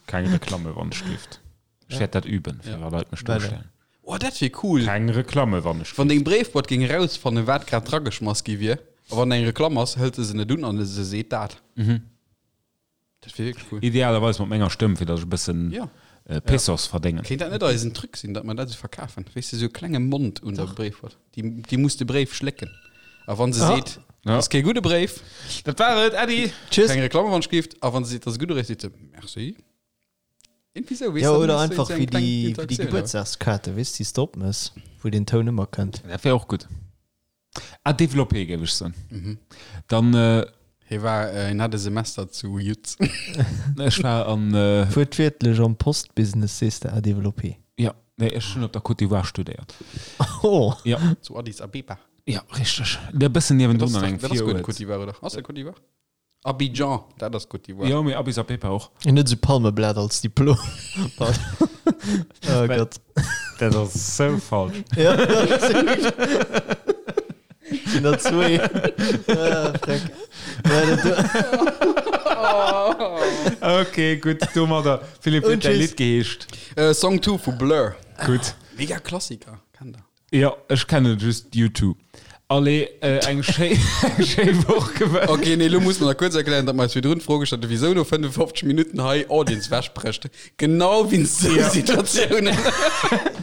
Keng Reklamme wann ech gift. Ech wäert dat üben, fir wa Leit mech dostellen. Oh, dat wier cool. Keng Reklamme wann ech Wann deng Bréifboîte géing erausfannen, wat grad drageschmass gi wier, a wann eng Reklamm ass, hëlt se se net un an se seet dat. Dat wier wierklech cool. Idealerweis mat menger Stëmm, fir datt ech e bëssen Ja. Pesos verdéngen. Kéint dat net eisen Truc sinn, datt mer dat esou verkafen? Weess de, esou e klenge Mond un der Bréifboîte. Déi, déi muss de Bréif schlécken. A wann se seet, Ja. ass kee gudde Bréif, Dat war et, Äddi! Tschüss. keng Reklamm wann gift, a wann se seet, ass e gudde Bréif, seet se Merci. Irgendwie sou, weess Ja, de, oder dann hues du einfach esou eng wéi kleng déi, wéi déi Interaktion, Gebuertsdagskaarte, weess, déi s de opmëss, wou den Toun ëmmer kënnt. Dat wär och gutt. À développer, géif ech soen. Dann. Hie war, hien hat e Semester zu Yutz. Ech war an. Wuertwiertlech am Postbusiness sees de à développer. Jo, nee, ech hunn op der Côte d'Ivoire studéiert. Oh! Jo. Zu Addis Abeba. Jo, richteg. E bëssen niewendrun an engem Dat ass guer net Viruert. Côte d'Ivoire, oder? Ass dat Côte d'Ivoire? Abidjan, dat ass Côte d'Ivoire. Jo, mee Addis Abeba och. Hien huet esou Palmeblat als Diplom. Oh Gott. Dat ass sou falsch. Ja, sinn der zwee. Ah, freck. Ja, dat do. Ok, gutt, domadder. Philippe, wéi huet däi Und tschüss. Lidd geheescht? Äh, Song 2 vu Blur. Gutt. Mega Klassiker, kennt der. Jo, ech kennen just U2. Allez, eng schéi, eng schéi Woch gewënscht. Ok, nee, lo muss mer nach kuerz erklären, datt mer eis virdrun d'Fro gestallt hunn, wisou no 55 Minutten hei Audience wechbrécht. Genau wéinst sou Situatiounen.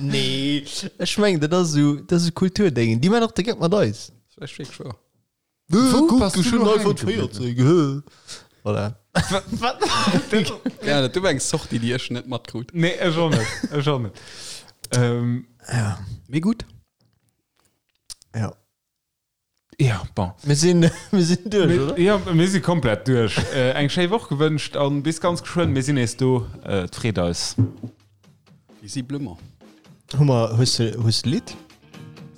Nee, ech mengen, dat ass esou, dat ass esou Kulturdéngen. Déi man och de Geck mat eis. Dat ass wierklech wouer. Wou Kuck, bass du du lo schon iPhone hänke gebliwwen? 14, gehö. Voilà. Ja, dat do war eng Sortie, déi ech net matkrut. Nee, ech och net, ech och net. Ähm, Ja. Mee gutt. Ja. ja, bon. Mir sinn, mir sinn duerch, oder? Ja, mir si komplett duerch. Äh, eng schéi Woch gewënscht an bis ganz geschwënn. Mir sinn nees do. Äh, et freet eis. Visiblement. Hu mer, hues de, hues de Lidd?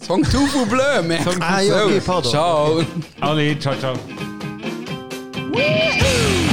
Song tout vous bleu, merci. Ah, jo, okay, pardon. Ciao. Allez, ciao, ciao. Woo!